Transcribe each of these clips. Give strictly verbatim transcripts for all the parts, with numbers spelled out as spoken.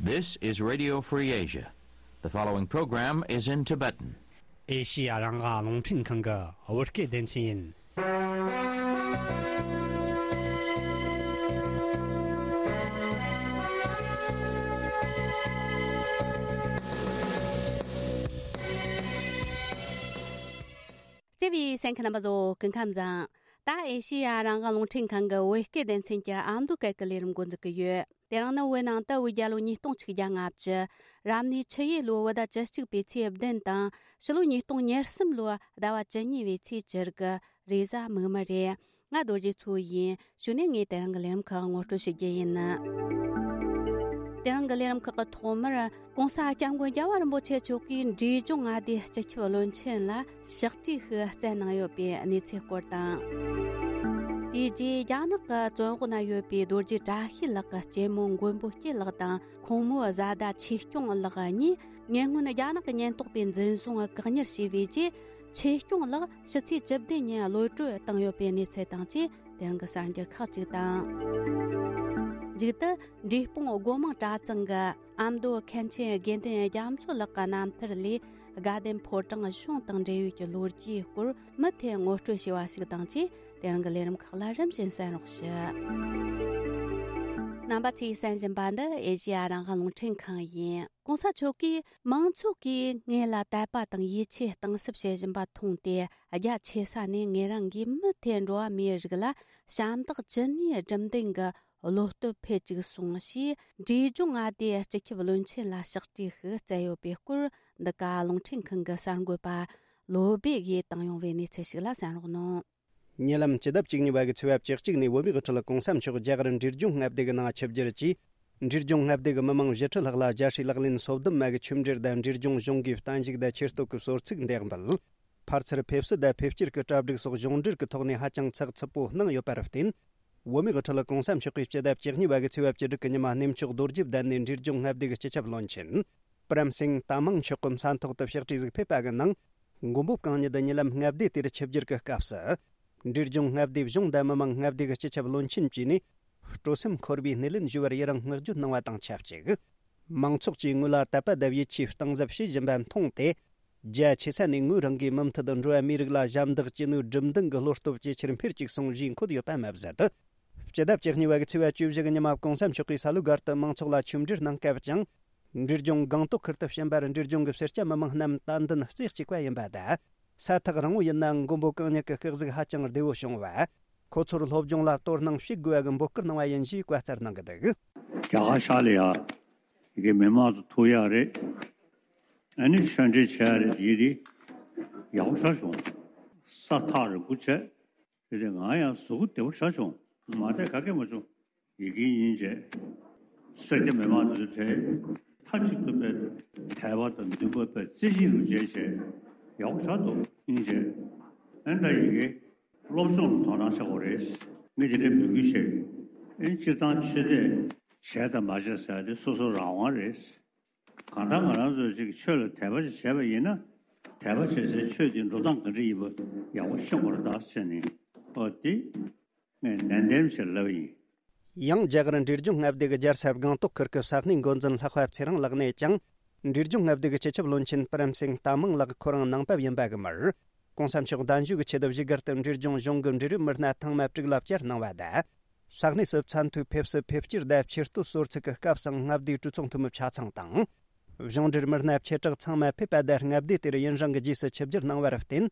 This is Radio Free Asia. The following program is in Tibetan. ཨེ་ཤི་ཡ་རང་དབང་རླུང་འཕྲིན་ཁང་གི་བོད་སྐད་སྡེ་ཚན་ཡིན། བརྩེ་བའི་གསན་མཁན་རྣམ་པ་ཚོ་སྐུ་ཁམས་བཟང་། ད་ཨེ་ཤི་ཡ་རང་དབང་རླུང་འཕྲིན་ཁང་གི་བོད་སྐད་སྡེ་ཚན་གྱི་ཨ་མདོ་སྐད་ཀྱི་ལས་རིམ་འགོ་འཛུགས་ཀྱི་ཡོད། དེ་རིང་ནི་བོད་ནང་དུ་བོད་རྒྱལ་ལོ་ཉིས་སྟོང་གཅིག་བརྒྱ་ལྔ་བཅུ། རབ་གནས་ཆུ་ཡོས་ལོའི་བོད་ཟླ་བཅུ་གཅིག་པའི་ཚེས་བདུན་དང་། ཕྱི་ལོ་ཉིས་སྟོང་ཉེར་གསུམ་ལོའི་ཟླ་བ་བཅུ་གཉིས་པའི་ཚེས་བཅུ་དགུ། རེས་གཟའ་མིག་དམར་རེད། ང་རྡོ་རྗེ་མཚོ་ཡིན། གཞུག་ནས་ངས་དེ་རིང་གི་ལས་རིམ་ཁག་ངོ་སྤྲོད་ཞུ་རྒྱུ་ཡིན། དེ་རིང་གི་ལས་རིམ་ཁག་གི་ཐོག་མར། ༸གོང་ས་༸སྐྱབས་མགོན་རྒྱལ་བ་རིན་པོ་ཆེ་མཆོག་གིས་འབྲས་ལྗོངས་མངའ་སྡེའི་སྤྱི་ཁྱབ་བློན་ཆེན་ལ་ཕྱག་བྲིས་ཤིག་བསྩལ་གནང་ཡོད་པའི་གནས་ཚུལ་སྐོར་དང་། དེའི་རྗེས་རྒྱ་ནག་གི་བཙོན་འོག་ན་ཡོད་པའི་རྡོ་རྗེ་བཀྲ་ཤིས་ལགས་ཀྱི་གཅེན་མོ་མགོན་པོ་སྐྱིད་ལགས་དང་ཁོང་མོའི་བཟའ་ཟླ་ཆོས་སྐྱོང་ལགས་གཉིས་ཉེ་སྔོན་རྒྱ་ནག་གི་ཉེན་རྟོག་པས་འཛིན་བཟུང་བཀག་ཉར་བྱས་པའི་རྗེས། ཆོས་སྐྱོང་ལགས་ཕྱི་ཚེས་བཅུ་བདུན་ཉིན་གློད་གྲོལ་བཏང་ཡོད་པའི་གནས་ཚུལ་དང་བཅས། དེ་རིང་གི་གསར་འགྱུར་ཁག་ཅིག་དང་། མཇུག་ཏུ། འབྲས་སྤུངས་སྒོ་མང་གྲྭ་ཚང་གི་ཨ་མདོ་མཁན་ཆེན་དགེ་འདུན་རྒྱ་མཚོ་ལགས་ཀྱི་རྣམ་ཐར་ལས། དགའ་ལྡན་ཕོ་བྲང་གཞུང་དང་འབྲེལ་ཡོད་ཀྱི་ལོ་རྒྱུས་སྐོར་མུ་མཐུད་ངོ་སྤྲོད་བྱས་པ་ཞིག་དང་བཅས། དེ་རིང་གི་ལས་རིམ་ཁག་ལ་རིམ་བཞིན་གསན་རོགས་ཞུ། རྣམ་པ་ཚོས་གསན་བཞིན་པ་འདི་ཨེ་ཤེ་ཡ་རང་དབང་རླུང་འཕྲིན་ཁང་ཡིན། ༸གོང་ས་མཆོག་གིས་མང་ཚོགས་ཀྱིས་ངེད་ལ་དད་པ་དང་ཡིད་ཆེས་གཏིང་ཟབ་བྱེད་བཞིན་པ་མཐོང་སྟེ། རྒྱ་ཆེ་ས་ནས་ངེད་རང་གིས་མུ་མཐུད་འགྲོ་བ་མིའི་རིགས་ལ་ཞབས་འདེགས་ཅི་ནུས་སྒྲུབ་འདུན་གྱི་བློ་སྟོབས་འཕེལ་བཅུག་སོང་ཞེས། འབྲས་ལྗོངས་མངའ་སྡེའི་སྤྱི་ཁྱབ་བློན་ཆེན་ལ་ཕྱག་བྲིས་ཤིག་བསྩལ་ཡོད་པའི་སྐོར། འདི་ག་རླུང་འཕྲིན་ཁང་གི་གསར་འགོད་པ་བློ་སྦེ་ཡིས་བཏང་ཡོང་བའི་གནས་ཚུལ་ཞིག་ལ་གསན་རོགས་གནང་། ཉེ་ལམ་སྤྱི་ཟླ་བཅུ་གཉིས་པ་གི་ཚེས་པ་བཅུ་གཅིག་ནས་བོད་མིའི་དབུ་ཁྲིད་༸གོང་ས་མཆོག་རྒྱ་གར་འབྲས་ལྗོངས་མངའ་སྡེ་གི་ནང་ཆིབས་བསྒྱུར་གྱིས། འབྲས་ལྗོངས་མངའ་སྡེ་གི་མི་མང་བཞི་ཁྲི་ལྷག་ལ་རྒྱལ་སྲས་ལག་ལེན་སོ་བདུན་མ་གི་ཆོས་འབྲེལ་དང་འབྲས་ལྗོངས་གཞུང་གི་བརྟན་བཞུགས་དང་ཆེ་བསྟོད་ཀྱི་གསོལ་ཚིགས་འདེགས་འབུལ། ཕར་ཚུར་ཕེབས་བསུ་དང་ཕེབས་སྐྱེལ་གྱི་གྲ་སྒྲིག་སོགས་གཞུང་འབྲེལ་གྱི་ཐོག་ནས་ཧ་ཅང་ཚགས་ཚུད་པོ་གནང་ཡོད་པར་བརྟེན། བོད་མིའི་དབུ་ཁྲིད་༸གོང་ས་མཆོག་གིས་སྤྱི་ཟླ་བཅུ་གཉིས་པ་གི་ཚེས་པ་བཅུ་དྲུག་གི་ཉི་མ་གནས་མཆོག་རྡོ་རྗེ་གདན་ནས་འབྲས་ལྗོངས་མངའ་སྡེ་གི་སྤྱི་ཁྱབ་བློན་ཆེན་པྲམ་སིང་ཏཱ་མང་མཆོག་གི་ས་ཐོག་ཏུ་ཕྱག་བྲིས་ཟིག་ཕེབས་པ་གི་ནང་། མགོན་པོ་གང་ཉིད་ཉེ་ལམ་མངའ་སྡེ་དེར་ཆིབས་བསྒྱུར་གྱི་སྐབས་སུ། འབྲས་ལྗོངས་མངའ་སྡེའི་གཞུང་དང་མི་མང་མངའ་སྡེ་གི་སྤྱི་ཁྱབ་བློན་ཆེན་བཅས་ནས་སྤྲོ་སེམས་འཁོལ་བའི་སྣེ་ལེན་ཞུ་བར་ཡི་རང་བསྔགས་བརྗོད་གནང་བ་དང་ཆབས་ཅིག་མང་ཚོགས་ཀྱིས་ངོས་ལ་དད་པ་དང་ཡིད་ཆེས་གཏིང་ཟབ་བྱེད་བཞིན་པ་མཐོང་སྟེ། རྒྱ་ཆེ་ས་ནས་ངོས་རང་གིས་མུ་མཐུད་དུ་འགྲོ་བ་མིའི་རིགས་ལ་ཞབས་འདེགས་ཅི་ནུས་སྒྲུབ་འདུན་གྱི་བློ་སྟོབས་ཇེ་ཆེར་འཕེལ་བཅུག་སོང་ཞེས་འཁོད་ཡོད་པ་མ་ཟད། སྤྱི་ཟླ་བཅུ་གཉིས་པ་གི་ཚེས་པ་བཅུ་བཞི་གི་ཉི་མ་༸གོང་ས་མཆོག་གིས་ས་ལུ་སྒར་དུ་མང་ཚོགས་ལ་ཆོས་འབྲེལ་གནང་སྐབས་ཀྱང་། འབྲས་ལྗོངས་སྒང་ཏོག་ཁུལ་དུ་ཕྱིན་པར་འབྲས་ལྗོངས་ཀྱི་སེར་སྐྱ་མི་མང་རྣམས་དད་འདུན་གཅིག་པ་ཡིན་པ་དང་། ས་ཐག་རིང་བོ་ཡིན་ནའང་མགོན་པོ་གང་ཉིད་ཀྱི་སྐུ་གཟུགས་ཧ་ཅང་བདེ་བོ་བྱུང་བ། ཁོ་ཚོར་སློབ་སྦྱོང་ལ་དོ་སྣང་བྱེད་དགོས་པ་གི་འབོད་སྐུལ་གནང་བ་ཡིན་ཞེས་བཀའ་སྩལ་གནང་གི་འདུག་རྒྱ་གར་ཤར་ལ་ཡ། ཡི་གེ་མི་མང་དུ་ཐུག་ཡག་རེད། ཨ་ནི་ཆོས་འབྲེལ་བྱེད་ཡག་རེད། ཡི་རེད། ཡག་པོ་ཆགས་བྱུང་། ས་ཐག་རིང་པོ་བྱས། དེ་དེ་ང་ཡང་གཟུགས་པོ་བདེ་པོ་ཆགས་བྱུང་། མ་བསྡད་ག་གེ་མ་བྱུང་། ཡི་གེ་ཡིན་བྱས། སེར་སྐྱ་མི་མང་དེ་ཚོ་གྲས་མཐའ་གཅིག་ཏུ་དཔེ་དད་པ་དང་འདུན་པ་དཔེ་རྩེ་གཅིག་ཏུ་བྱས་བྱས་ཡག་པོ་ཆགས་འདུག་ཡིན་བྱས། ཨ་ནི་ད་ཡི་གེ་སློབ་སྦྱོང་ལ་དོ་སྣང་བྱེད་དགོས་རེད། ངས་དེ་འདྲའི་འབོད་སྐུལ་བྱས། ཨ་ནི་སྤྱིར་བཏང་ཆོས་དད་བྱས་དང་མ་བྱས་ཟེར་ཡ་དེ་སོ་སོ་རང་དབང་རེད། གང་ལྟར་ང་རང་ཚོ་ཅིག་ཆོས་ལ་དད་པ་ཅིག་བྱས་པ་ཡིན་ན། དད་པ་བྱེད་སའི་ཆོས་དེ་འགྲོ་སྟངས་ག་འདྲ་ཡིན་པ་ཡག་པོ་ཤེས་དགོས་རེད་ད་ཟེར་ནས། ཨོ་དེ་ངས་ནན་ཏན་བྱས་ལབ་ཡིན། ཡང་རྒྱ་གར་འབྲས་ལྗོངས་མངའ་སྡེ་གི་རྒྱལ་ས་སྒང་ཏོག་ཁུལ་གྱི་ས་གནས་འགོ་འཛིན་ལྷག་པ་ཚེ་རིང་ལགས་ནས་ཀྱང་། འབྲས་ལྗོངས་མངའ་སྡེ་གི་སྤྱི་ཁྱབ་བློན་ཆེན་པྲམ་སིང་ཏཱ་མང་ལགས་ཁོ་རང་ནང་པ་ཡིན་པ་གི་མར། ༸གོང་ས་མཆོག་གདན་ཞུ་གི་ཆེད་དུ་བཞུགས་སྒར་དུ་འབྲས་ལྗོངས་གཞུང་གི་འབྲེལ་ཡོད་མི་སྣ་ཐེངས་མ་དྲུག་ལ་བཅར་གནང་བ་དང་། ས་གནས་སུ་ཚད་མཐོའི་ཕེབས་བསུ་ཕེབས་སྐྱེལ་དང་ཆེ་བསྟོད་གསོལ་ཚིགས་ཀྱི་སྐབས་སུ་མངའ་སྡེའི་གྲོས་ཚོགས་འཐུས་མི་ཆ་ཚང་དང་། གཞུང་འབྲེལ་མི་སྣ་ཆེ་དྲགས་ཚང་མ་ཕེབས་པ་དང་མངའ་སྡེ་དེར་ཡུན་རིང་གི་རྗེས་སུ་ཆིབས་བསྒྱུར་གནང་བར་བརྟེན།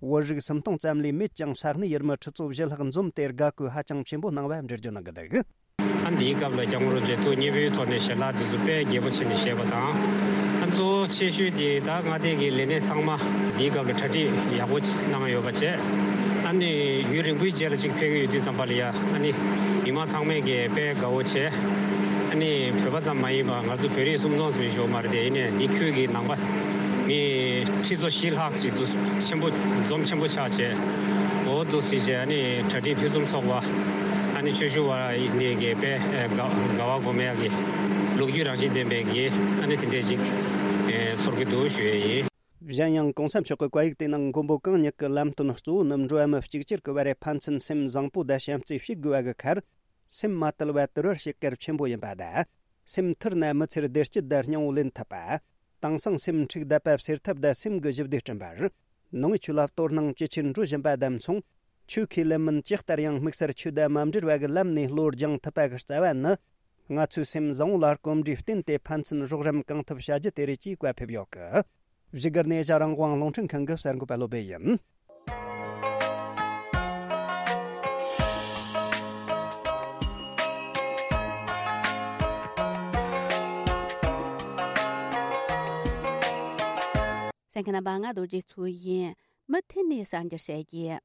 བོད་རིགས་སུམ་སྟོང་ཙམ་ལས་མེད་ཀྱང་ས་གནས་ཡུལ་མི་ཁྲི་ཚོ་བཞི་ལྷག་འཛོམས་ཏེ་དགའ་སྐུལ་ཧ་ཅང་ཆེན་པོ་གནང་བ་འགྲེལ་བརྗོད་གནང་གི་འདུག་ཨ་འདིའི་སྐབས་ལ་སྐྱབས་མགོན་རིན་པོ་ཆེ་ཐུགས་མཉེས་པོའི་ཐོག་ནས་ཞལ་ལག་དེ་ཚོ་དཔེ་རྒྱས་པོ་བྱས་ནས་བཞེས་པ་དང་། ཨ་གཙོ་བོ་ཆེ་ཤོས་དེ་ད་མངའ་སྡེ་གི་ལས་སྣེ་ཚང་མ་འདིའི་སྐབས་ལ་གྲ་སྒྲིག་ཡག་པོ་གནང་ཡོད་པ་བྱས། ཨ་ནི་ཡུན་རིང་པོའི་རྗེས་ལ་ཅིག་ཕེབས་ཀྱི་ཡོད་དུས་ཙམ་པ་ལ་ཡ་ཨ་ནི་མི་མང་ཚང་མས་ཀྱི་དཔེ་དགའ་བོ་བྱས། ཨ་ནི་བོད་པ་ཙམ་མ་ཡིན་པ་ང་ཚོ་བོད་རིགས་སུམ་སྟོང་ཙམ་ཞིག་མ་རེད་དེ། ཡིན་ནའི་འདི་ཁུལ་གྱི་ནང་པ་མི་ཁྲི་ཚོ་བཞི་ལྷག་ཅིག་འདུ་ཆེན་པོ་འཛོམས་ཆེན་པོ་ཆགས་བྱས། འོ་འདུག་སེ་བྱས་ཨ་ནི་གྲ་སྒྲིག་ཕུན་སུམ་ཚོགས་པ། ཨ་ནི་ཆོས་ཞུ་བ་ནས་ཀྱི་དཔེ་དགའ་དགའ་བ་སྒོམ་ཡག་གི་ལོ་རྒྱུས་རང་བཞིན་ལྡན་པའི་གི་ཨ་ནི་དེ་འདྲས་ཅིག་ཚོར་གྱི་འདུག་ཞུ་ཡས་ཡིན། གཞན་ཡང་གོང་ས་མཆོག་གི་བཀའ་ཡིག་དེའི་ནང་མགོན་པོ་གང་ཉིད་ཀྱི་ལམ་སྟོན་གཙོ་བོ་ནི་འགྲོ་བ་མི་གཅིག་གྱུར་གྱི་བར་ཕན་ཚུན་སེམས་བཟང་པོ་དང་བྱམས་བརྩེ་བྱེད་དགོས་པ་གི་ཁར། སེམས་མ་དུལ་བ་དུལ་བར་བྱེད་གལ་ཆེན་པོ་ཡིན་པ་དང་། སེམས་ཐུར་ན་མི་ཚེར་བདེ་སྐྱིད་དང་སྙིང་བོ་ལེན་ཐུབ་པ། དེང་སང་སེམས་འཁྲུག་བསྡད་པ་སེལ་ཐབས་དང་སེམས་ཀྱི་ཞི་བདེ་བསྐྲུན་པར། ནང་ཆོས་ལ་དོ་སྣང་ཇེ་ཆེར་འགྲོ་བཞིན་པ་དང་མཚུངས། ཆོས་ཁས་ལེན་མིན་ཇི་ལྟར་ཡང་དམིགས་བསལ་ཆོས་དང་མ་འབྲེལ་བ་གི་ལམ་ནས་བློ་སྦྱང་ཐུབ་པ་གི་རྩ་བ་ནི། ང་ཚོའི་སེམས་བཟང་བོ་ལ་གོམས་འདྲིས་བསྟེན་ཏེ་ཕན་ཚུན་རོགས་རམ་གང་ཐུབ་བྱ་རྒྱུ་དེ་རེད་ཅེས་བཀའ་ཕེབས་ཡོད་གི། བཞུགས་སྒར་ནས་ཨེ་ཤ་རང་དབང་རླུང་འཕྲིན་ཁང་གི་གསར་འགོད་པ་བློ་བྷེ་ཡིན། གསན་མཁན་རྣམ་པ། ང་རྡོ་རྗེ་མཚོ་ཡིན། མུ་མཐུད་ནས་གསར་འགྱུར་བཤད་རྒྱུ།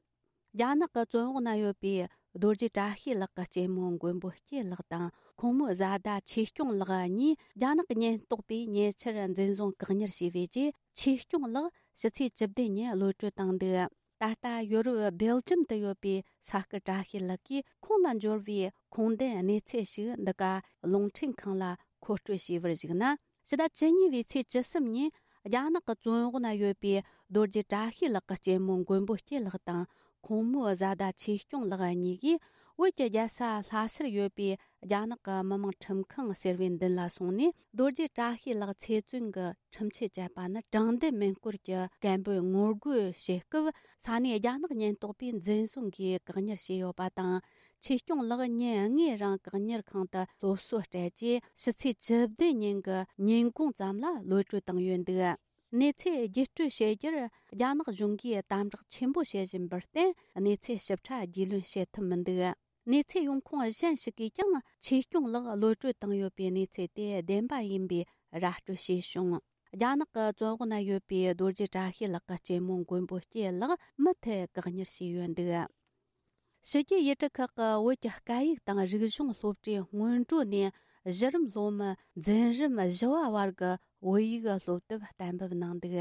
རྒྱ་ནག་གི་བཙོན་འོག་ན་ཡོད་པའི་རྡོ་རྗེ་བཀྲ་ཤིས་ལགས་ཀྱི་གཅེན་མོ་མགོན་པོ་སྐྱིད་ལགས་དང་ཁོང་མོའི་བཟའ་ཟླ་ཆོས་སྐྱོང་ལགས་གཉིས་རྒྱ་ནག་གི་ཉེན་རྟོག་པས་ཉེ་ཆར་འཛིན་བཟུང་བཀག་ཉར་བྱས་པའི་རྗེས། ཆོས་སྐྱོང་ལགས་ཕྱི་ཚེས་བཅུ་བདུན་ཉིན་གློད་གྲོལ་བཏང་འདུག་ད་ལྟ་ཡོ་རོབ་སྦེལ་ཇམ་དུ་ཡོད་པའི་ས་སྐུ་བཀྲ་ཤིས་ལགས་ཀྱིས་ཁོང་ལ་འབྱོར་བའི་ཁུངས་ལྡན་གནས་ཚུལ་ཞིག་འདི་ག་རླུང་འཕྲིན་ཁང་ལ་མཁོ་སྤྲོད་བྱས་པར་གཞིགས་ན། ཕྱི་ཟླ་བཅུ་གཉིས་པའི་ཚེས་བཅུ་གསུམ་ཉིན་རྒྱ་ནག་གི་བཙོན་འོག་ན་ཡོད་པའི་རྡོ་རྗེ་བཀྲ་ཤིས་ལགས་ཀྱི་གཅེན་མོ་མགོན་པོ་སྐྱིད་ལགས་དང་ཁོང་མོའི་བཟའ་ཟླ་ཆོས་སྐྱོང་ལགས་གཉིས་ཀྱིས་བོད་ཀྱི་རྒྱལ་ས་ལྷ་སར་ཡོད་པའི་རྒྱ་ནག་གི་མི་དམངས་ཁྲིམས་ཁང་ཟེར་བའི་མདུན་ལ་སོང་ནས། རྡོ་རྗེ་བཀྲ་ཤིས་ལགས་ཚེ་བཙོན་གྱི་ཁྲིམས་ཆད་བཅད་པ་ནི་དྲང་བདེན་མིན་སྐོར་གྱི་སྐད་འབོད་ངོ་རྒོལ་བྱེད་སྐབས། ས་གནས་རྒྱ་ནག་ཉེན་རྟོག་པས་འཛིན་བཟུང་གིས་བཀག་ཉར་བྱས་ཡོད་པ་དང་། ཆོས་སྐྱོང་ལགས་ཉིན་ལྔའི་རིང་བཀག་ཉར་ཁང་དུ་སློབ་གསོ་སྤྲད་རྗེས། ཕྱི་ཚེས་བཅུ་བདུན་ཉིན་གྱི་ཉིན་གུང་ཙམ་ལ་གློད་གྲོལ་བཏང་ཡོད་འདུག་གནས་ཚུལ་བརྒྱུད་སྤྲོད་བྱེད་རྒྱུར་རྒྱ་ནག་གཞུང་གིས་དམ་དྲག་ཆེན་པོ་བྱེད་བཞིན་པར་བརྟེན། གནས་ཚུལ་ཞིབ་ཕྲ་རྒྱུས་ལོན་བྱེད་ཐུབ་མི་འདུག་གནས་ཚུལ་ཡོང་ཁུངས་གཞན་ཞིག་གིས་ཀྱང་ཆོས་སྐྱོང་ལགས་གློད་གྲོལ་བཏང་ཡོད་པའི་གནས་ཚུལ་དེ་བདེན་པ་ཡིན་པའི་ར་སྤྲོད་བྱས་བྱུང་། རྒྱ་ནག་གི་བཙོན་འོག་ན་ཡོད་པའི་རྡོ་རྗེ་བཀྲ་ཤིས་ལགས་ཀྱི་གཅེན་མོ་མགོན་པོ་སྐྱིད་ལགས་མུ་མཐུད་བཀག་ཉར་བྱས་ཡོད་འདུག་ཕྱི་རྒྱལ་ཡུལ་གྲུ་ཁག་གི་བོད་ཀྱི་སྐད་ཡིག་དང་རིག་གཞུང་སློབ་གྲྭའི་སྔོན་འགྲོ་ནས་གཞི་རིམ་སློབ་མ་འཛིན་རིམ་བཞི་བ་བར་གྱི་བོད་ཡིག་སློབ་དེབ་གཏན་འབེབས་གནང་འདུག་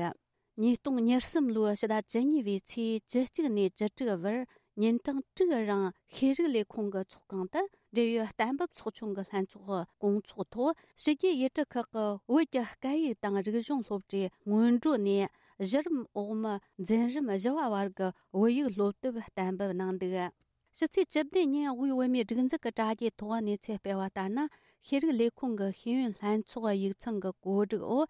ཉིས་སྟོང་ཉེར་གསུམ་ལོའི་ཕྱི་ཟླ་བཅུ་གཉིས་པའི་ཚེས་བཅུ་གཅིག་ནས་བཅུ་དྲུག་བར་ཉིན་གྲངས་དྲུག་རིང་ཤེས་རིག་ལས་ཁུངས་ཀྱི་ཚོགས་ཁང་དུ། འབྲེལ་ཡོད་གཏན་འབེབས་ཚོགས་ཆུང་གི་ལྷན་ཚོགས་སྐོང་ཚོགས་ཐོག་ཕྱི་རྒྱལ་ཡུལ་གྲུ་ཁག་གི་བོད་ཀྱི་སྐད་ཡིག་དང་རིག་གཞུང་སློབ་གྲྭའི་སྔོན་འགྲོ་ནས་གཞི་རིམ་འོག་མ་འཛིན་རིམ་བཞི་བ་བར་གྱི་བོད་ཡིག་སློབ་དེབ་གཏན་འབེབས་གནང་འདུག་ཕྱི་ཚེས་བཅུ་བདུན་ཉིན་དབུས་བོད་མིའི་སྒྲིག་འཛུགས་ཀྱི་དྲ་རྒྱའི་ཐོག་གནས་ཚུལ་སྤེལ་བ་ལྟར་ན། ཤེས་རིག་ལས་ཁུངས་ཀྱི་ཤེས་ཡོན་ལྷན་ཚོགས་ཡིག་ཚང་གི་གོ་སྒྲིག་འོག་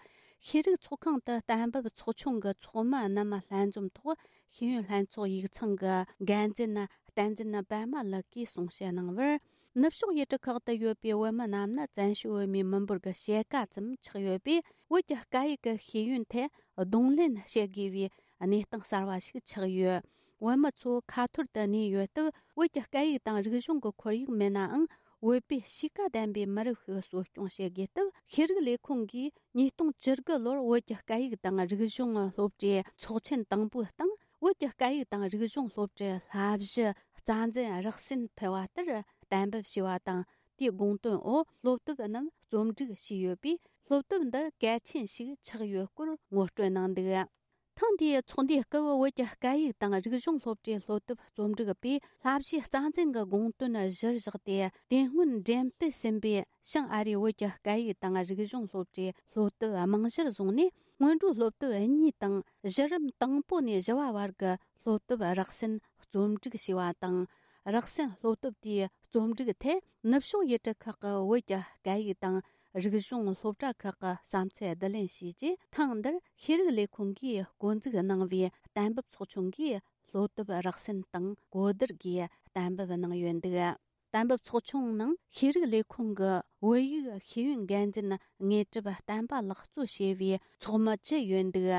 ཤེས་རིག་ཚོགས་ཁང་དུ་གཏན་འབེབས་ཚོགས་ཆུང་གི་ཚོགས་མི་རྣམས་ལྷན་འཛོམས་ཐོག་ཤེས་ཡོན་ལྷན་ཚོགས་ཡིག་ཚང་གི་འགན་འཛིན་བསྟན་འཛིན་པད་མ་ལགས་ཀྱིས་གསུང་བཤད་གནང་བར། ནུབ་ཕྱོགས་ཡུལ་གྲུ་ཁག་ཏུ་ཡོད་པའི་བོད་མི་རྣམས་ནི་བཙན་བྱོལ་བོད་མིའི་མི་འབོར་གྱི་ཕྱེད་ཀ་ཙམ་ཆགས་ཡོད་པས། བོད་ཀྱི་སྐད་ཡིག་གི་ཤེས་ཡོན་ཐད་གདོང་ལེན་བྱེད་དགོས་པའི་གནས་སྟངས་གསར་བ་ཞིག་ཆགས་ཡོད། བོད་མི་ཚོ་ཁ་ཐོར་དུ་གནས་ཡོད་སྟབས། བོད་ཀྱི་སྐད་ཡིག་དང་རིག་གཞུང་གི་ཁོར་ཡུག་མེད་ནའང་། བོད་པའི་གཤིས་ཀ་ལྡན་པའི་མི་རབས་ཤིག་གསོ་སྐྱོང་བྱེད་དགོས་སྟབས། ཤེས་རིག་ལས་ཁུངས་ཀྱིས་ཉིས་སྟོང་བཅུ་དགུ་ལོར་བོད་ཀྱི་སྐད་ཡིག་དང་རིག་གཞུང་སློབ་གྲྭའི་ཚོགས་ཆེན་དང་པོའི་སྟེང་། བོད་ཀྱི་སྐད་ཡིག་དང་རིག་གཞུང་སློབ་གྲྭའི་བསླབ་གཞི་རྩ་འཛིན་རགས་ཟིན་ཕུལ་བ་ལྟར་གཏན་འབེབས་བྱས་པ་དང་། དེའི་དགོངས་དོན་འོག་སློབ་དེབ་རྣམས་རྩོམ་སྒྲིག་བྱས་ཡོད་པས། སློབ་དེབ་འདི་གལ་ཆེན་ཞིག་ཆགས་ཡོད་སྐོར་ངོ་སྤྲོད་གནང་འདུག་ཐེངས་འདིའི་ཚོགས་འདུའི་སྐབས། བོད་ཀྱི་སྐད་ཡིག་དང་རིག་གཞུང་སློབ་གྲྭའི་སློབ་དེབ་རྩོམ་སྒྲིག་པས་བསླབ་གཞིའི་རྩ་འཛིན་གྱི་དགོངས་དོན་གཞིར་བཞག་སྟེ། དེ་སྔོན་འགྲེམས་སྤེལ་ཟིན་པའི་བྱང་ཨ་རིའི་བོད་ཀྱི་སྐད་ཡིག་དང་རིག་གཞུང་སློབ་གྲྭའི་སློབ་དེབ་རྨང་གཞིར་བཟུང་ནས། སྔོན་འགྲོའི་སློབ་དེབ་གཉིས་དང་། གཞི་རིམ་དང་པོ་ནས་བཞི་བ་བར་གྱི་སློབ་དེབ་རགས་ཟིན་རྩོམ་སྒྲིག་བྱས་པ་དང་། རགས་ཟིན་སློབ་དེབ་དེའི་རྩོམ་སྒྲིག་ཐད་ནུབ་ཕྱོགས་ཡུལ་གྲུ་ཁག་གི་བོད་ཀྱི་སྐད་ཡིག་དང་རིག་གཞུང་སློབ་གྲྭ་ཁག་གི་བསམ་ཚུལ་བསྡུ་ལེན་བྱས་རྗེས། ཐེངས་འདིར་ཤེས་རིག་ལས་ཁུངས་ཀྱིས་འགོ་འཛུགས་གནང་བའི་གཏན་འབེབས་ཚོགས་ཆུང་གིས་སློབ་དེབ་རགས་ཟིན་དང་གོ་བསྡུར་གྱིས་གཏན་འབེབས་གནང་ཡོད་འདུག་གཏན་འབེབས་ཚོགས་ཆུང་ནང་ཤེས་རིག་ལས་ཁུངས་ཀྱི་བོད་ཡིག་ཤེས་ཡོན་འགན་འཛིན་དངོས་གྲུབ་བསྟན་པ་ལགས་གཙོ་བྱས་པའི་ཚོགས་མི་བཅུ་ཡོད་འདུག་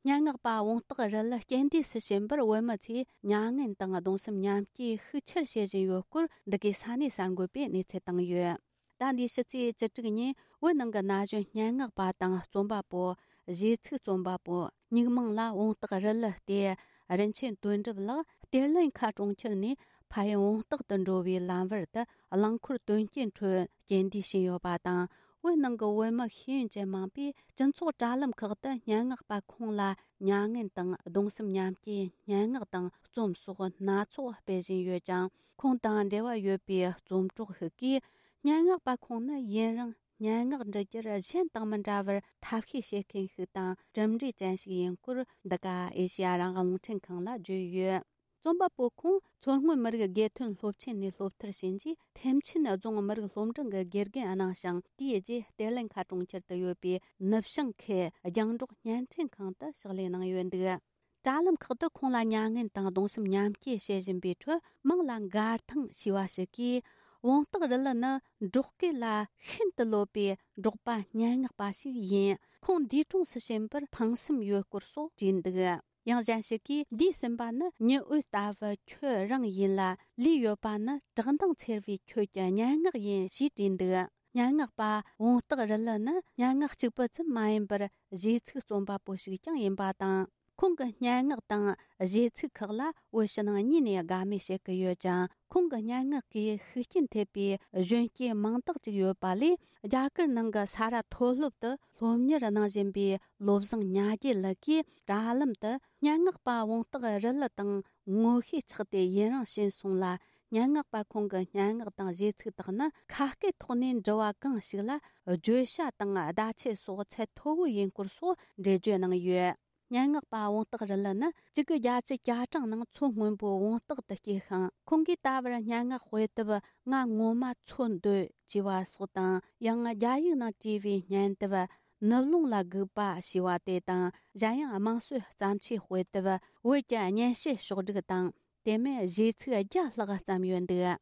སྙན་ངག་པ་བོང་སྟག་རི་ལི་རྐྱེན་འདས་སུ་ཕྱིན་པར་བོད་མི་ཚོས་མྱ་ངན་དང་གདུང་སེམས་མཉམ་སྐྱེའི་ཤུགས་ཆེར་བྱེད་བཞིན་ཡོད་སྐོར། འདི་གའི་ས་གནས་གསར་འགོད་པས་གནས་ཚུལ་བཏང་ཡོད། ཟླ་འདིའི་ཕྱི་ཚེས་བཅུ་དྲུག་ཉིན་བོད་ནང་གི་ན་གཞོན་སྙན་ངག་པ་དང་རྩོམ་པ་པོ། གཞས་ཚིག་རྩོམ་པ་པོ། སྨྱུག་མིང་ལ་བོང་སྟག་རི་ལི་སྟེ། རིན་ཆེན་དོན་གྲུབ་ལགས་གཏེར་ལེན་ཁ་གྲོང་ཁྱེར་ནས་ཕ་ཡུལ་བོང་སྟག་ཏུ་འགྲོ་བའི་ལམ་བར་དུ་རླངས་འཁོར་དོན་རྐྱེན་ཁྲོད་རྐྱེན་འདས་ཕྱིན་ཡོད་པ་དང་། བོད་ནང་གི་བོད་མི་ཤེས་ཡོན་ཅན་མང་པོས་སྤྱི་ཚོགས་དྲ་ལམ་ཁག་ཏུ་སྙན་ངག་པ་ཁོང་ལ་མྱ་ངན་དང་གདུང་སེམས་མཉམ་སྐྱེའི་སྙན་ངག་དང་རྩོམ་སོགས་སྣ་ཚོགས་སྤེལ་བཞིན་ཡོད་ཀྱང་། ཁོང་དང་འབྲེལ་བ་ཡོད་པའི་རྩོམ་གྲོགས་ཤིག་གིས། སྙན་ངག་པ་ཁོང་ནི་ཡུན་རིང་སྙན་ངག་འབྲི་རྒྱུར་གཞན་དང་མི་འདྲ་བར་ཐབས་ཤེས་བྱེད་མཁན་ཞིག་དང་། གྲུབ་འབྲས་ཅན་ཞིག་ཡིན་སྐོར། འདི་ག་ཨེ་ཤེ་ཡ་རང་དབང་རླུང་འཕྲིན་ཁང་ལ་བརྗོད་ཡོད། རྩོམ་པ་པོ་ཁོང་མཚོ་སྔོན་མི་རིགས་དགེ་ཐོན་སློབ་ཆེན་ནས་སློབ་མཐར་ཕྱིན་རྗེས། ཐེམ་ཆེན་རྫོང་མི་རིགས་སློབ་འབྲིང་གི་དགེ་རྒན་གནང་ཞིང་། དེའི་རྗེས་གཏེར་ལེན་ཁ་གྲོང་ཁྱེར་དུ་ཡོད་པའི་ནུབ་བྱང་ཁུལ་རྒྱང་སྒྲོག་བརྙན་འཕྲིན་ཁང་དུ་ཕྱག་ལས་གནང་ཡོད་འདུག། དྲ་ལམ་ཁག་ཏུ་ཁོང་ལ་མྱ་ངན་དང་གདུང་སེམས་མཉམ་སྐྱེད་བྱེད་བཞིན་པའི་ཁྲོད། མིང་ལ་མགར་ཐང་ཞེས་པ་ཞིག་གིས། བོང་སྟག་རི་ལི་ནི་འབྲོག་སྐད་ལ་ཤིན་ཏུ་ལོབས་པའི་འབྲོག་པ་སྙན་ངག་པ་ཞིག་ཡིན། ཁོང་འདས་གྲོངས་སུ་ཕྱིན་པར་ཕངས་སེམས་ཡོད་སྐོར་སོགས་བྲིས་འདུག། ཡང་གཞན་ཞིག་གིས། འདས་ཟིན་པ་ནི་ཉི་འོད་ལྟ་བུ་ཁྱོད་རང་ཡིན་ལ། ལུས་ཡོད་པ་ནི་བཀྲག་མདངས་འཚེར་བའི་ཁྱོད་ཀྱི་སྙན་ངག་ཡིན། ཞེས་བྲིས་འདུག། སྙན་ངག་པ་བོང་སྟག་རི་ལི་ནི་སྙན་ངག་གཅིག་པུ་ཙམ་མ་ཡིན་པར། གཞས་ཚིག་རྩོམ་པ་པོ་ཞིག་ཀྱང་ཡིན་པ་དང་། ཁོང་གི་སྙན་ངག་དང་གཞས་ཚིག་ཁག་ལ་བོད་ཕྱི་ནང་གཉིས་ནས་དགའ་མོས་བྱེད་ཀྱི་ཡོད་ཅིང་། ཁོང་གི་སྙན་ངག་གིས་ཤུགས་རྐྱེན་ཐེབས་པའི་གཞོན་སྐྱེས་མང་དག་ཅིག་ཡོད་པ་ལས། རྒྱ་གར་ནང་གི་ས་རཱ་མཐོ་སློབ་ཏུ་སློབ་གཉེར་གནང་བཞིན་པའི་བློ་བཟང་ཉ་རྒྱལ་ལགས་ཀྱིས་དྲ་ལམ་དུ། སྙན་ངག་པ་བོང་སྟག་རི་ལི་དང་ངོ་ཤེས་ཆགས་ཏེ་ཡུན་རིང་ཕྱིན་སོང་ལ། སྙན་ངག་པ་ཁོང་གི་སྙན་ངག་དང་གཞས་ཚིག་དག་ནི་ཁ་སྐད་ཐོག་ནས་འབྲི་བ་གང་ཞིག་ལ་བརྗོད་བྱ་དང་བརྡ་ཆད་སོགས་ཚད་མཐོ་བོ་ཡིན་སྐོར་སོགས་འགྲེལ་བརྗོད་གནང་ཡོད། སྙན་ངག་པ་བོང་སྟག་རི་ལི་ནི་གཅིག་དགུ་བརྒྱད་ཅུ་གྱ་གྲངས་ནང་མཚོ་སྔོན་པོའི་བོང་སྟག་ཏུ་སྐྱེས་ཤིང་། ཁོང་གིས་ད་བར་སྙན་ངག་དཔེ་དེབ་ང་ངོ་མ་འཚོལ་འདོད་ཅེས་པ་སོགས་དང་། ཡང་རྒྱ་ཡིག་ནང་བྲིས་པའི་སྙན་དེབ་ནུབ་ལུང་ལ་སྒུག་པ་ཞེས་པ་དེ་དང་། གཞན་ཡང་དམངས་སྲོལ་བརྩམས་ཆོས་དཔེ་དེབ་བོད་ཀྱི་སྙན་ཞུ་ཕྱོགས་བསྒྲིགས་དང་། དེ་མིན་གཞས་ཚིག་བརྒྱ་ལྷག་བརྩམས་ཡོད་འདུག།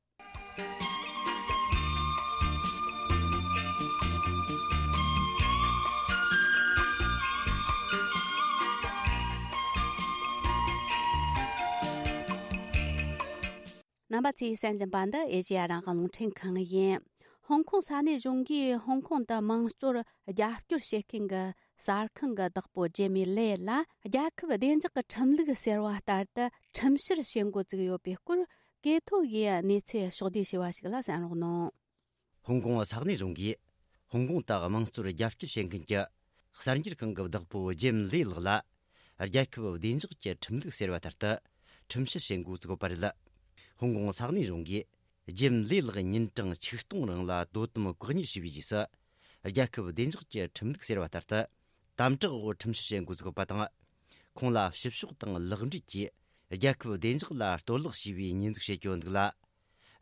རྣམ་པ་ཚོས་གསན་བཞིན་པ་འདི་ཨེ་ཤེ་ཡ་རང་དབང་རླུང་འཕྲིན་ཁང་ཡིན། ཧོང་ཀོང་ས་གནས་གཞུང་གིས་ཧོང་ཀོང་དུ་དམངས་གཙོར་རྒྱབ་སྐྱོར་བྱེད་མཁན་གྱི་གསར་ཁང་གི་བདག་པོ་ཇེ་མི་ལེ་ལ། རྒྱལ་ཁབ་བདེ་འཇགས་ཀྱི་ཁྲིམས་ལུགས་ཟེར་བ་ལྟར་དུ་ཁྲིམས་བཤེར་བྱེད་འགོ་བཙུགས་ཡོད་པའི་སྐོར། ཀེ་ཐོ་ཡིས་གནས་ཚུལ་ཕྱོགས་བསྡུས་བྱས་པ་ཞིག་ལ་གསན་རོགས་གནང་། ཧོང་ཀོང་ས་གནས་གཞུང་གིས་ཧོང་ཀོང་དུ་དམངས་གཙོར་རྒྱབ་སྐྱོར་བྱེད་མཁན་གྱི་གསར་འགྱུར་ཁང་གི་བདག་པོ་ཇེམ་ལེ་ལགས་ལ། རྒྱལ་ཁབ་བདེ་འཇགས་ཀྱི་ཁྲིམས་ལུགས་ཟེར་བ་ལྟར་དུ་ཁྲིམས་བཤེར་བྱེད་འགོ་བཙུགས་པ་རེད། ཧོང་ཀོང་ས་གནས་གཞུང་གིས་ཇེམ་ལེ་ལགས་ཉིན་གྲངས་ཆིག་སྟོང་རིང་ལ་དོ་དམ་བཀག་ཉར་བྱས་པའི་རྗེས་སུ། རྒྱལ་ཁབ་བདེ་འཇགས་ཀྱི་ཁྲིམས་ལུགས་ཟེར་བ་ལྟར་དུ་དམ་དྲག་འོག་ཁྲིམས་བཤེར་བྱེད་འགོ་བཙུགས་པ་དང་། ཁོང་ལ་ཕྱི་ཕྱོགས་དང་ལེགས་འབྲེལ་གྱིས་རྒྱལ་ཁབ་བདེ་འཇགས་ལ་གཏོར་བརླག་བྱས་པའི་ཉེས་འཛུགས་བྱེད་ཀྱི་ཡོད་འདུག་ལ།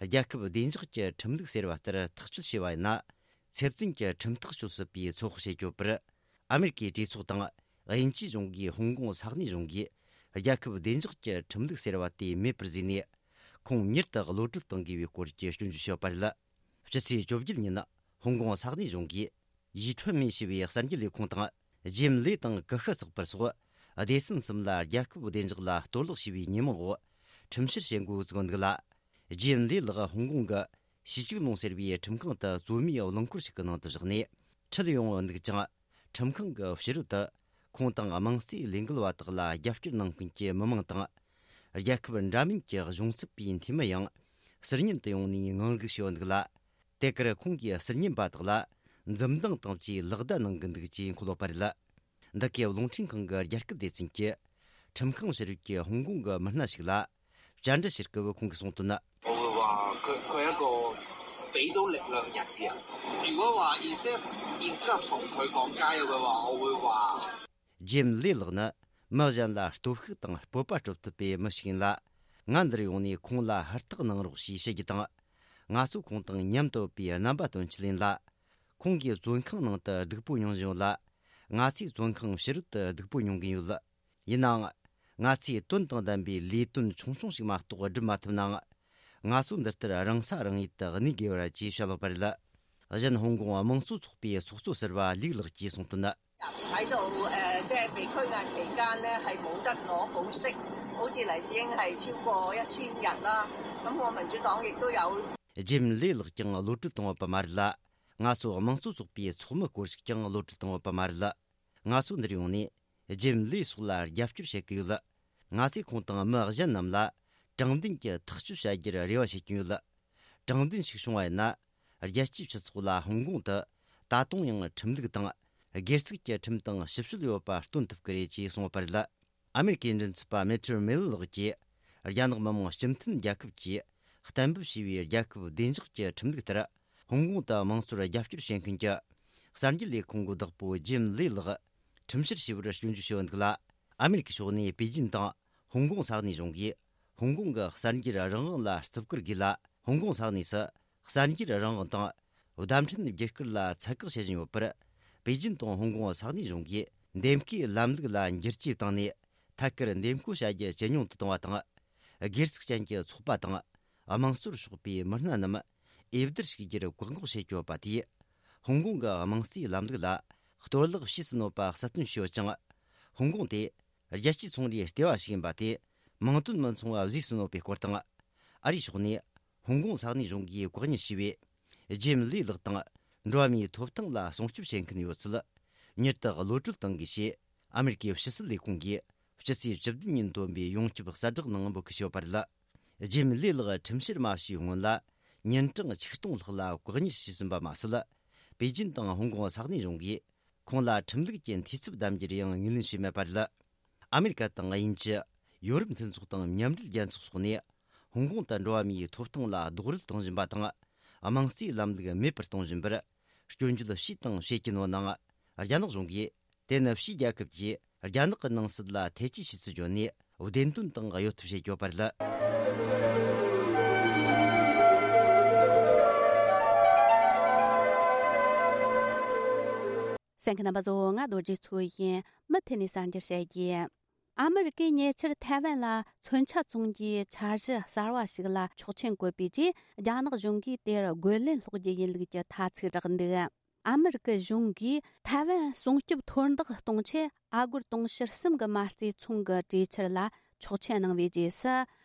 རྒྱལ་ཁབ་བདེ་འཇགས་ཀྱི་ཁྲིམས་ལུགས་ཟེར་བ་ལྟར་ཐག་གཅོད་བྱས་པ་ཡིན་ན། ཚེ་བཙོན་གྱི་ཁྲིམས་ཐག་གཅོད་སྲིད་པའི་ཚོད་དཔག་བྱེད་ཀྱི་ཡོད་པར། ཨ་མེ་རི་ཀའི་གྲོས་ཚོགས་དང་དབྱིན་ཇིའི་གཞུང་གིས་ཧོང་ཀོང་ས་གནས་གཞུང་གིས་རྒྱལ་ཁབ་བདེ་འཇགས་ཀྱི་ཁྲིམས་ལུགས་ཟེར་བ་དེ་མེད་པར་བཟོས་ནས། ཁོང་མྱུར་དུ་གློད་གྲོལ་གཏོང་དགོས་པའི་སྐོར་གྱི་སྐྱོན་བརྗོད་བྱས་པ་རེད། ཕྱི་ཚེས་བཅོ་བརྒྱད་ཉིན། ཧོང་ཀོང་ས་གནས་གཞུང་གིས། ཡི་ཁྲོན་མེ་ཞེས་པའི་གསར་འགྱུར་ལས་ཁུངས་དང་། ཇེམ་ལེ་དང་ཀུ་ཤུ་ཚགས་པར་སོགས་སྡེ་ཚན་གསུམ་ལ་རྒྱལ་ཁབ་བདེ་འཇགས་ལ་གཏོར་བརླག་བྱས་པའི་ཉེས་མིང་འོག་ཁྲིམས་བཤེར་བྱེད་འགོ་བཙུགས་འདུག་ལ། ཇེམ་ལེ་ལགས་ཧོང་ཀོང་གི་ཞི་ཅིག་ལུང་ཟེར་བའི་ཁྲིམས་ཁང་དུ་རྩོད་མེད་རླངས་འཁོར་ཞིག་གི་ནང་དུ་བཞག་ནས་ཁྲིད་ཡོང་འདུག་ཅིང་། ཁྲིམས་ཁང་གི་ཕྱི་རོལ་དུ་ཁོང་དང་དམངས་གཙོའི་ལས་འགུལ་བ་དག་ལ་རྒྱབ་སྐྱོར་གནང་མཁན་གྱི་མི་མང་དང་། རྒྱལ་ཁབ་འདྲ་མིན་གྱི་གཞུང་ཚབ་པའི་འཐུས་མི་ཡང་ཟུར་ཉན་དུ་ཡོང་ནས་ངང་སྒུག་བྱས་འདུག་ལ། དེ་གར་ཁོང་གིས་ཟུར་ཉན་པ་དག་ལ་འཛུམ་མདངས་དང་བཅས་ལག་བརྡ་གནང་གི་འདུག་ཅེས་འཁོད་ཡོད་པ་རེད། འདི་གའི་རླུང་འཕྲིན་ཁང་གི་རྒྱ་སྐད་སྡེ་ཚན་གྱིས་ཁྲིམས་ཁང་ཕྱི་རོལ་གྱི་ཧོང་ཀོང་གི་མི་སྣ་ཞིག་ལ་བཅར་འདྲི་བྱེད་སྐབས་ཁོང་གིས་གསུངས་དོན། 我會話佢佢係一個俾到力量人嘅人。如果話 instead instead of 同佢講加油嘅話，我會話 ཇེམ་ལེ་ལགས་ནི་མི་གཞན་ལ་སྟོབས་ཤུགས་དང་སྤོབས་པ་སྤྲོད་ཐུབ་པའི་མི་ཞིག་ཡིན་ལ། ང་འདིར་ཡོང་ནས་ཁོང་ལ་ཧུར་ཐག་གནང་རོགས་ཞེས་བཤད་རྒྱུ་དང་། ང་ཚོ་ཁོང་དང་མཉམ་དུ་ཡོད་པའི་རྣམ་པ་སྟོན་ཆེད་ཡིན་ལ། ཁོང་གིས་བཙོན་ཁང་ནང་དུ་སྡུག་པོ་མྱོང་བཞིན་ཡོད་ལ། ང་ཚོས་བཙོན་ཁང་ཕྱི་རོལ་དུ་སྡུག་པོ་མྱོང་གིན་ཡོད། ཡིན་ནའང་། ང་ཚོས་དོན་དང་ལྡན་པའི་ལས་དོན་ཆུང་ཆུང་ཞིག་མ་གཏོགས་སྒྲུབ་མ་ཐུབ་ནའང་། ང་ཚོ་འདི་ལྟར་རང་ས་རང་ཡུལ་དུ་གནས་དགོས་པ་རེད་ཅེས་བཤད་ཡོད་པ་རེད། གཞན་ཧོང་ཀོང་དམངས་གཙོ་ཚོགས་པའི་ཚོགས་གཙོ་ཟུར་པ་ལིག་ལགས་ཀྱིས་གསུངས་དོན། 排到誒，即係被拘押期間呢，係冇得攞保釋，好似黎智英係超過一千日啦。咁我民主黨亦都有。 ཇེམ་ལེ་ལགས་ཀྱང་གློད་གྲོལ་བཏང་ཡོད་པ་མ་རེད་ལ། ང་ཚོ་དམངས་གཙོ་ཚོགས་པའི་ཚོགས་མི་སྐོར་ཞིག་ཀྱང་གློད་གྲོལ་བཏང་ཡོད་པ་མ་རེད། ང་ཚོ་འདིར་ཡོང་ནས་ཇེམ་ལེ་སོགས་ལ་རྒྱབ་སྐྱོར་བྱེད་ཀྱི་ཡོད། ང་ཚོས་ཁོང་དང་མི་གཞན་རྣམས་ལ་དྲང་བདེན་གྱི་ཐག་གཅོད་བྱ་རྒྱུར་རེ་བ་བྱེད་ཀྱི་ཡོད། དྲང་བདེན་ཞིག་བྱུང་བ་ཡིན་ན། རྒྱལ་སྤྱིའི་སྤྱི་ཚོགས་ལ་ཧོང་ཀོང་དུ་ད་དུང་ཡང་ཁྲིམས་ལུགས་དང་། སྒེར་ཚུགས་ཀྱི་ཁྲིམས་དང་ཞིབ་དཔྱོད་ཡོད་པ་སྟོན་ཐུབ་ཀྱི་རེད་ཅེས་གསུངས་པ་རེད། ཨ་མེ་རི་ཀའི་མགྲིན་ཚབ་པ་མེ་ཊར་མེ་ལི་ལགས་ཀྱིས། རྒྱ་ནག་མི་དམངས་སྤྱི་མཐུན་རྒྱལ་ཁབ་ཀྱིས་གཏན་འབེབས་བྱས་པའི་རྒྱལ་ཁབ་བདེ་འཇགས་ཀྱི་ཁྲིམས་ལུགས་ལྟར། ཧོང་ཀོང་དུ་དམངས་གཙོར་རྒྱབ་སྐྱོར་བྱེད་མཁན་གྱི་གསར་འགྱུར་ལས་ཁུངས་ཀྱི་བདག་པོ་ཇེམ་ལེ་ལགས་ཁྲིམས་བཤེར་བྱས་པར་སྐྱོན་བརྗོད་བྱས་ཡོད་འདུག་ལ། ཨ་མེ་རི་ཀའི་ཕྱོགས་ནས་པེ་ཅིན་དང་ཧོང་ཀོང་ས་གནས་གཞུང་གིས། ཧོང་ཀོང་གི་གསར་འགྱུར་རང་དབང་ལ་བརྩི་བཀུར་དགོས་ལ། ཧོང་ཀོང་ས་གནས་སུ་གསར་འགྱུར་རང་དབང་དང་བརྡ་འཕྲིན་བརྒྱུད་སྐུར་ལ་ཚད་བཀག་བྱེད་བཞིན་ཡོད་པར། པེ་ཅིན་དང་ཧོང་ཀོང་ས་གནས་གཞུང་གིས་འདེམས་བསྐོའི་ལམ་ལུགས་ལ་འགྱུར་བཅོས་བཏང་ནས། ཐད་ཀར་འདེམས་བསྐོ་བྱ་རྒྱུ་ཇེ་ཉུང་དུ་བཏང་བ་དང་། སྒེར་ཚུགས་ཅན་གྱི་ཚོགས་པ་དང་། དམངས་གཙོར་ཕྱོགས་པའི་མི་སྣ་རྣམས་འོས་བསྡུར་ཞུགས་རྒྱུར་བཀག་འགོག་བྱེད་ཀྱི་ཡོད་པ་དེས། ཧོང་ཀོང་གི་དམངས་གཙོའི་ལམ་ལུགས་ལ་གཏོར་བརླག་བྱས་ཟིན་ཡོད་པ་གསལ་སྟོན་བྱས་ཡོད་ཅིང་། ཧོང་ཀོང་དེ་རྒྱལ་སྤྱིའི་ཚོང་རའི་ལྟེ་བ་ཞིག་ཡིན་པ་དེ་མིང་དོན་མི་མཚུངས་པ་བཟོས་ཟིན་ཡོད་པའི་སྐོར་དང་། ཨ་རིའི་ཕྱོགས་ནས་ཧོང་ཀོང་ས་གནས་གཞུང་གིས་བཀག་ཉར་བྱས་པའི་ཇེམ་ལི་ལགས་དང་འགྲོ་བ་མིའི་ཐོབ་ཐང་ལ་སྲུང་སྐྱོབ་བྱེད་མཁན་ཡོད་ཚུལ་མྱུར་དུ་གློད་གྲོལ་གཏང་དགོས་ཞེས། ཨ་མེ་རི་ཀའི་ཕྱི་སྲིད་ལས་ཁུངས་ཀྱིས་སྤྱི་ཚེས་བཅུ་བདུན་ཉིན་བཏོན་པའི་ཡོངས་ཁྱབ་གསལ་བསྒྲགས་ནང་འབོད་སྐུལ་བྱས་ཡོད་པ་རེད། ཇེམ་ལི་ལགས་ཁྲིམས་བཤེར་མ་བྱས་སྔོན་ལ་ཉིན་གྲངས་ཆིག་སྟོང་ལྷག་ལ་བཀག་ཉར་བྱས་ཟིན་པ་མ་ཟད། པེ་ཅིན་དང་ཧོང་ཀོང་ས་གནས་གཞུང་གིས་ཁོང་ལ་ཁྲིམས་ལུགས་ཀྱི་འཐུས་ཚབ་གདམ་རྒྱུར་ཡང་ངོས་ལེན་བྱས་མེད་པ་རེད། ཨ་མེ་རི་ཀ་དང་དབྱིན་ཇི། ཡོ་རོབ་མཐུན་ཚོགས་དང་མཉམ་འབྲེལ་རྒྱལ་ཚོགས་སོགས་ནས་ཧོང་ཀོང་དུ་འགྲོ་བ་མིའི་ཐོབ་ཐང་ལ་རྡོག་རོལ་གཏོང་བཞིན་པ་དང་། དམངས་གཙོའི་ལམ་ལུགས་མེད་པར་གཏོང་བཞིན་པར་སྐྱོན་བརྗོད་བྱས་དང་བྱེད་ཀྱིན་ཡོད་ནའང་། རྒྱ་ནག་གཞུང་གིས་དེ་ནི་ཕྱིའི་རྒྱལ་ཁབ་ཀྱིས་རྒྱ་ནག་གི་ནང་སྲིད་ལ་ཐེ་ཇུས་བྱས་ཚུལ་བརྗོད་ནས། བདེན་དོན་དང་གཡོལ་ཐབས་བྱེད་ཀྱི་ཡོད་པ་རེད། གསན་མཁན་རྣམ་པ་ཚོ། ང་རྡོ་རྗེ་མཚོ་ཡིན། མུ་མཐུད་ནས་གསར་འགྱུར་བཤད་རྒྱུ། ཨ་མི་རི་ཀས་ཉེ་ཆར་ཐའེ་ཝན་ལ་མཚོན་ཆ་བཙོང་རྒྱུའི་འཆར་གཞི་གསར་བ་ཞིག་ལ་ཆོག་མཆན་བཀོད་པའི་རྗེས། རྒྱ་ནག་གཞུང་གིས་དེར་རྒོལ་ལན་སློག་རྒྱུ་ཡིན་ལུགས་ཀྱི་ཐ་ཚིག་བསྒྲགས་འདུག་ཨ་མི་རི་ཀའི་གཞུང་གིས་ཐའེ་ཝན་སྲུང་སྐྱོབ་མཐོར་འདེགས་གཏོང་ཆེད། ཨ་སྒོར་དུང་ཕྱུར་གསུམ་གྱི་མ་རྩའི་ཚོང་གི་གྲོས་འཆར་ལ་ཆོག་མཆན་གནང་བའི་རྗེས་སུ།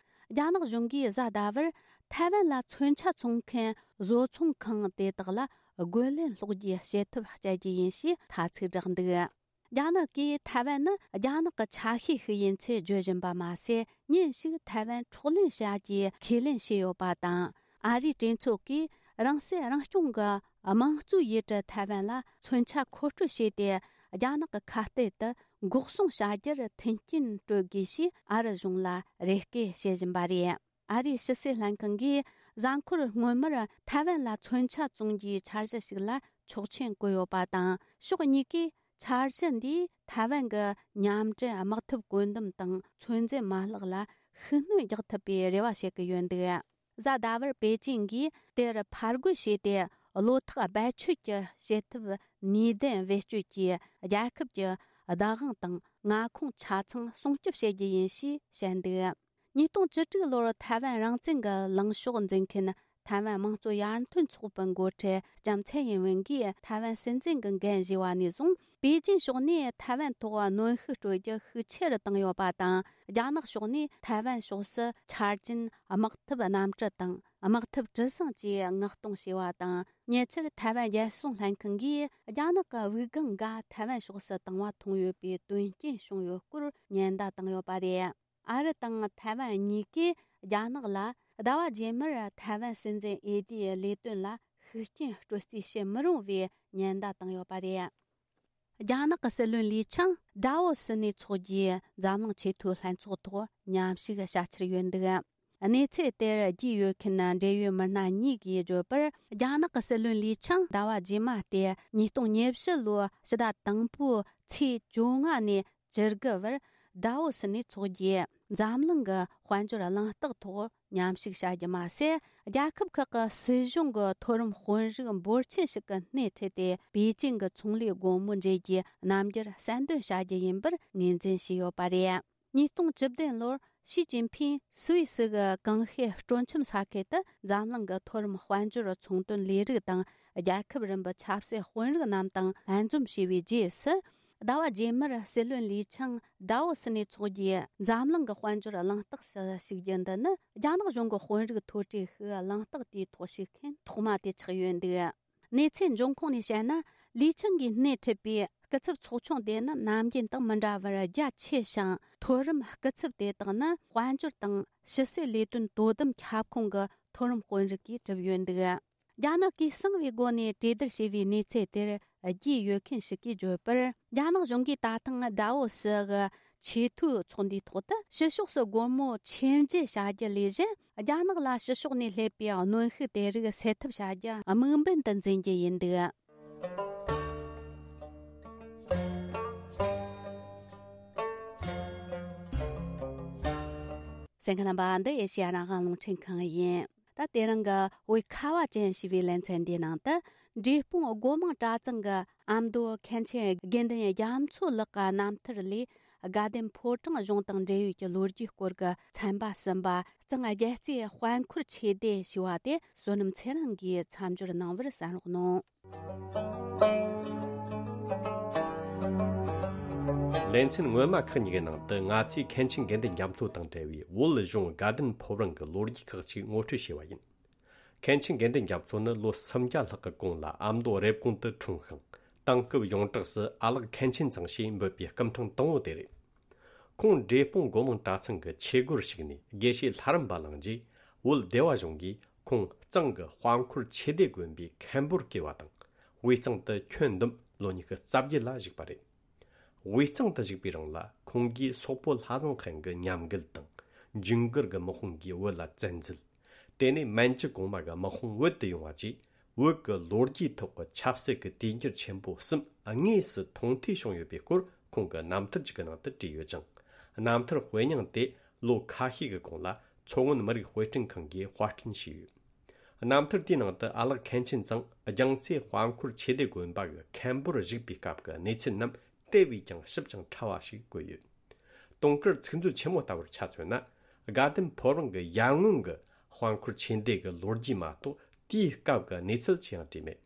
རྒྱ་ནག་གཞུང་གིས་གཟའ་ཟླ་བར་ཐའེ་ཝན་ལ་མཚོན་ཆ་འཚོང་མཁན་བཟོ་ཚོང་ཁང་དེ་དག་ལ་རྒོལ་ལན་སློག་རྒྱུའི་བྱེད་ཐབས་སྤྱད་རྒྱུ་ཡིན་ཞེས་ཐ་ཚིག་བསྒྲགས་འདུག་རྒྱ་ནག་གིས་ཐའེ་ཝན་ནི་རྒྱ་ནག་གི་ཆ་ཤས་ཤིག་ཡིན་ཚུལ་བརྗོད་བཞིན་པ་མ་ཟད། ཉིན་ཞིག་ཐའེ་ཝན་འཕྲོག་ལེན་བྱ་རྒྱུའི་ཁས་ལེན་བྱས་ཡོད་པ་དང་། ཨ་རིའི་གྲོས་ཚོགས་ཀྱིས་རང་སྲིད་རང་སྐྱོང་གི་དམངས་གཙོའི་ཡུལ་གྲུ་ཐའེ་ཝན་ལ་མཚོན་ཆ་མཁོ་སྤྲོད་བྱས་ཏེ། རྒྱ་ནག་གི་ཁ་གཏད་དུ་འགོག་སྲུང་བྱ་རྒྱུར་མཐུན་རྐྱེན་སྤྲོད་དགོས་ཞེས་ཨ་རི་གཞུང་ལ་རེ་སྐུལ་བྱེད་བཞིན་པ་རེད། ཨ་རིའི་ཕྱི་སྲིད་ལྷན་ཁང་གིས་གཟའ་འཁོར་སྔོན་མར་ཐའེ་ཝན་ལ་མཚོན་ཆ་བཙོང་རྒྱུའི་འཆར་གཞི་ཞིག་ལ་ཆོག་མཆན་བཀོད་ཡོད་པ་དང་། ཕྱོགས་གཉིས་ཀས་འཆར་གཞི་འདིས་ཐའེ་ཝན་གྱི་མཉམ་འབྲེལ་དམག་འཐབ་བཀོད་འདོམས་དང་ཚོད་འཛིན་མ་ལག་ལ་ཤུགས་སྣོན་རྒྱག་ཐུབ་པའི་རེ་བ་བྱེད་ཀྱི་ཡོད་འདུག་གཟའ་ཟླ་བར་པེ་ཅིང་གིས་དེར་ཕར་རྒོལ་བྱས་ཏེ། བློ་ཐག་རྦད་ཆོད་ཀྱི་བྱེད་ཐབས་ནུས་ལྡན་བེད་སྤྱོད་ཀྱིས་རྒྱལ་ཁབ་ཀྱི་བདག་དབང་དང་མངའ་ཁོངས་ཆ་ཚང་སྲུང་སྐྱོབ་བྱེད་རྒྱུ་ཡིན་ཞེས་བཤད་འདུག་ཉིས་སྟོང་བཅུ་དྲུག་ལོར་ཐའེ་ཝན་རང་བཙན་གྱི་ལངས་ཕྱོགས་འཛིན་མཁན་ཐའེ་ཝན་དམངས་གཙོ་ཡར་ཐོན་ཚོགས་པའི་འགོ་ཁྲིད་ལྕམ་ཚའེ་ཡིན་ཝེན་གྱིས་ཐའེ་ཝན་སྲིད་འཛིན་གྱི་འགན་བཞེས་པ་ནས་བཟུང་། པེ་ཅིན་ཕྱོགས་ནས་ཐའེ་ཝན་ཐོག་གནོན་ཤུགས་སྤྲོད་རྒྱུ་ཤུགས་ཆེ་རུ་བཏང་ཡོད་པ་དང་། རྒྱ་ནག་ཕྱོགས་ནས་ཐའེ་ཝན་ཕྱོགས་སུ་ཆ་རྐྱེན་དམག་འཐབ་གནམ་གྲུ་དང་དམག་འཐབ་གྲུ་གཟིངས་བཅས་མངགས་གཏོང་བྱས་པ་དང་། ཉེ་ཆར་ཐའེ་ཝན་རྒྱལ་སྲུང་ལྷན་ཁང་གིས་རྒྱ་ནག་གི་དབུགས་ལྒང་འགའ་ཐའེ་ཝན་ཕྱོགས་སུ་བཏང་བ་མཐོང་ཡོད་པའི་དོན་རྐྱེན་བྱུང་ཡོད་སྐོར་ཉེན་བརྡ་བཏང་ཡོད་པ་རེད། ཨ་རི་དང་ཐའེ་ཝན་གཉིས་ཀས་རྒྱ་ནག་ལ་ཟླ་བ་རྗེས་མར་ཐའེ་ཝན་སྲིད་འཛིན་འོས་བསྡུའི་ལས་དོན་ལ་ཤུགས་རྐྱེན་སྤྲོད་རྩིས་བྱེད་མི་རུང་བའི་ཉེན་བརྡ་བཏང་ཡོད་པ་རེད། རྒྱ་ནག་གི་སྲིད་བློན་ལི་ཆང་ཌའོ་སི་ནས་ཚོགས་རྒྱུའི་འཛམ་གླིང་ཆེས་མཐོའི་ལྷན་ཚོགས་ཐོག་མཉམ་ཞུགས་བྱ་འཆར་ཡོད་འདུག་གནས་ཚུལ་དེར་རྒྱུས་ཡོད་མཁན་འབྲེལ་ཡོད་མི་སྣ་གཉིས་ཀྱིས་བརྗོད་པར། རྒྱ་ནག་གི་སྲིད་བློན་ལི་ཆང་ཟླ་བ་རྗེས་མ་སྟེ་ཉིས་སྟོང་ཉེར་བཞི་ལོའི་ཕྱི་ཟླ་དང་པོའི་ཚེས་བཅོ་ལྔ་ནས་བཅུ་དགུ་བར་ཌའོ་སི་ནས་ཚོགས་རྒྱུའི་འཛམ་གླིང་གི་དཔལ་འབྱོར་གླེང་སྟེགས་ཐོག་མཉམ་ཞུགས་བྱ་རྒྱུ་མ་ཟད། རྒྱལ་ཁབ་ཁག་གི་སྲིད་གཞུང་གི་མཐོ་རིམ་དཔོན་རིགས་འབོར་ཆེན་ཞིག་གི་སྣེ་ཁྲིད་དེ། པེ་ཅིང་གི་ཚོང་ལས་སྒོ་མོ་འབྱེད་རྒྱུའི་རྣམ་འགྱུར་གསལ་འདོན་བྱ་རྒྱུ་ཡིན་པར་ངོས་འཛིན་བྱས་ཡོད་པ་རེད། ཉིས་སྟོང་བཅུ་བདུན་ལོར་ཞི་ཅིན་ཕིང་སུད་སི་གི་ཀང་ཤིས་སྤྲོ་འཆམ་ས་ཁུལ་དུ་འཛམ་གླིང་གི་མཐོ་རིམ་དཔལ་འབྱོར་ཚོང་དོན་ལས་རིགས་དང་། རྒྱལ་ཁབ་རིམ་པའི་ཆབ་སྲིད་དཔོན་རིགས་རྣམས་དང་ལྷན་འཛོམས་བྱས་པའི་རྗེས་སུ། ཟླ་བ་རྗེས་མར་སྲིད་བློན་ལི་ཆང་ཌའོ་སི་ནས་ཚོགས་རྒྱུའི་འཛམ་གླིང་གི་དཔལ་འབྱོར་གླེང་སྟེགས་སུ་ཞུགས་རྒྱུ་འདི་ནི། རྒྱ་ནག་གཞུང་གི་དཔོན་རིགས་མཐོ་གྲས་ཤིག་གླེང་སྟེགས་དེའི་ཐོག་ཞུགས་མཁན་ཐོག་མ་དེ་ཆགས་ཡོད་འདུག་གནས་ཚུལ་འབྱུང་ཁུངས་ནས་བཤད་ན། ལི་ཆང་གིས་སྣེ་ཁྲིད་པའི་སྐུ་ཚབ་ཚོགས་ཆུང་དེ་ནི་ནམ་རྒྱུན་དང་མི་འདྲ་བར་རྒྱ་ཆེ་ཞིང་། མཐོ་རིམ་སྐུ་ཚབ་དེ་དག་ནི་དཔལ་འབྱོར་དང་ཕྱི་སྲིད་ལས་དོན་དོ་དམ་ཁྱབ་ཁོངས་ཀྱི་མཐོ་རིམ་དཔོན་རིགས་ཀྱིས་གྲུབ་ཡོད་འདུག་རྒྱ་ནག་གིས་གསང་བའི་སྒོ་ནས་གྲོས་བསྡུར་བྱས་པའི་གནས་ཚུལ་དེར་རྒྱུས་ཡོད་མཁན་ཞིག་གིས་བརྗོད་པར། རྒྱ་ནག་གཞུང་གིས་ད་ཐེངས་ཌའོ་སི་གི་ཆེས་མཐོའི་ཚོགས་འདུའི་ཐོག་ཏུ་ཕྱི་ཕྱོགས་སུ་སྒོ་མོ་ཕྱེ་འབྱེད་བྱ་རྒྱུ་ལས་གཞན། རྒྱ་ནག་ལ་ཕྱི་ཕྱོགས་ནས་སླེབས་པའི་གནོན་ཤུགས་དེ་རིགས་སེལ་ཐབས་བྱ་རྒྱུ་དམིགས་འབེན་དུ་འཛིན་རྒྱུ་ཡིན་འདུག་བརྟན་ཁ་རྣམ་པ། འདི་ཨེ་ཤེ་ཡ་རང་དབང་རླུང་འཕྲིན་ཁང་ཡིན། ད་དེ་རིང་གི་བོད་ཁ་བ་ཅན་ཞེས་པའི་ལེ་ཚན་འདིའི་ནང་དུ། འབྲས་སྤུངས་སྒོ་མང་གྲྭ་ཚང་གི་ཨ་མདོ་མཁན་ཆེན་དགེ་འདུན་རྒྱ་མཚོ་ལགས་ཀྱི་རྣམ་ཐར་ལས། དགའ་ལྡན་ཕོ་བྲང་གཞུང་དང་འབྲེལ་ཡོད་ཀྱི་ལོ་རྒྱུས་སྐོར་གྱི་ཚན་པ་གསུམ་པ། གཙང་རྒྱལ་རྩེ་དཔལ་འཁོར་ཆོས་སྡེ་ཞེས་པ་དེ་བསོད་ནམས་ཚེ་རིང་གིས་མཚམས་སྦྱོར་གནང་བར་གསན་རོགས་གནང་། ལེ་ཚན་སྔོན་མ་ཁག་གཉིས་ཀྱི་ནང་དུ། ང་ཚོས་མཁན་ཆེན་དགེ་འདུན་རྒྱ་མཚོ་དང་འབྲེལ་བའི་བོད་གཞུང་དགའ་ལྡན་ཕོ་བྲང་གི་ལོ་རྒྱུས་ཁག་ཅིག་ངོ་སྤྲོད་བྱས་པ་ཡིན། མཁན་ཆེན་དགེ་འདུན་རྒྱ་མཚོ་ནི་ལོ་སུམ་བརྒྱ་ལྷག་གི་གོང་ལ་ཨ་མདོ་རེབ་གོང་དུ་འཁྲུངས་ཤིང་། དེང་སྐབས་ཡོངས་གྲགས་སུ་ཨ་ལགས་མཁན་ཆེན་ཚང་ཞེས་འབོད་པའི་སྐུ་ཕྲེང་དང་པོ་དེ་རེད། ཁོང་འབྲས་སྤུངས་སྒོ་མང་གྲྭ་ཚང་གི་ཆོས་སྒོར་ཞུགས་ནས་དགེ་བཤེས་ལྷ་རམས་པ་བླངས་རྗེས། བོད་སྡེ་བ་གཞུང་གིས་ཁོང་གཙང་གི་དཔལ་འཁོར་ཆོས་སྡེ་དགོན་པའི་མཁན་པོར་བསྐོས་པ་དང་། དབུས་གཙང་དུ་ཁྱོན་བསྡོམས་ལོ་ཉི་ཤུ་རྩ་བརྒྱད་ལ་བཞུགས་པ་རེད། དབུས་གཙང་དུ་བཞུགས་པའི་རིང་ལ། ཁོང་གིས་སོག་པོ་ལྷ་བཟང་ཧན་གྱི་ཉམས་རྒུད་དང་། ཇུན་གར་གྱི་དམག་དཔུང་གིས་བོད་ལ་བཙན་འཛུལ། དེ་ནས་མན་ཇུ་གོང་མ་གི་དམག་དཔུང་བོད་དུ་ཡོང་བ་བཅས། བོད་ཀྱི་ལོ་རྒྱུས་ཐོག་གི་ཆབ་སྲིད་ཀྱི་དུས་འགྱུར་ཆེན་པོ་གསུམ་དངོས་སུ་མཐོང་ཐོས་བྱུང་ཡོད་པའི་སྐོར། ཁོང་གི་རྣམ་ཐར་ཅིག་གི་ནང་དུ་བྲིས་ཡོད་ཅིང་། རྣམ་ཐར་དཔེ་རྙིང་དེ་ལོ་ཁ་ཤས་ཀྱི་གོང་ལ་མཚོ་སྔོན་མི་རིགས་དཔེ་སྐྲུན་ཁང་གིས་དཔར་སྐྲུན་བྱས་ཡོད། རྣམ་ཐར་དེའི་ནང་དུ་ཨ་ལགས་མཁན་ཆེན་ཚང་རྒྱལ་རྩེ་དཔལ་འཁོར་ཆོས་སྡེ་དགོན་པ་གི་མཁན་པོར་བཞུགས་པའི་སྐབས་ཀྱི་གནས་ཚུལ་རྣམས་དེ་བས་ཀྱང་ཞིབ་ཅིང་ཕྲ་བ་ཞིག་བཀོད་ཡོད། དུང་དཀར་ཚིག་མཛོད་ཆེན་མོ་ལྟ་བུར་ཆ་མཚོན་ན། དགའ་ལྡན་ཕོ་བྲང་གི་ཡར་སྔོན་གྱི་དཔལ་འཁོར་ཆོས་སྡེ་གི་ལོ་རྒྱུས་མ་གཏོགས། དེའི་སྐབས་ཀྱི་གནས་ཚུལ་ཅི་ཡང་བྲིས་མེད།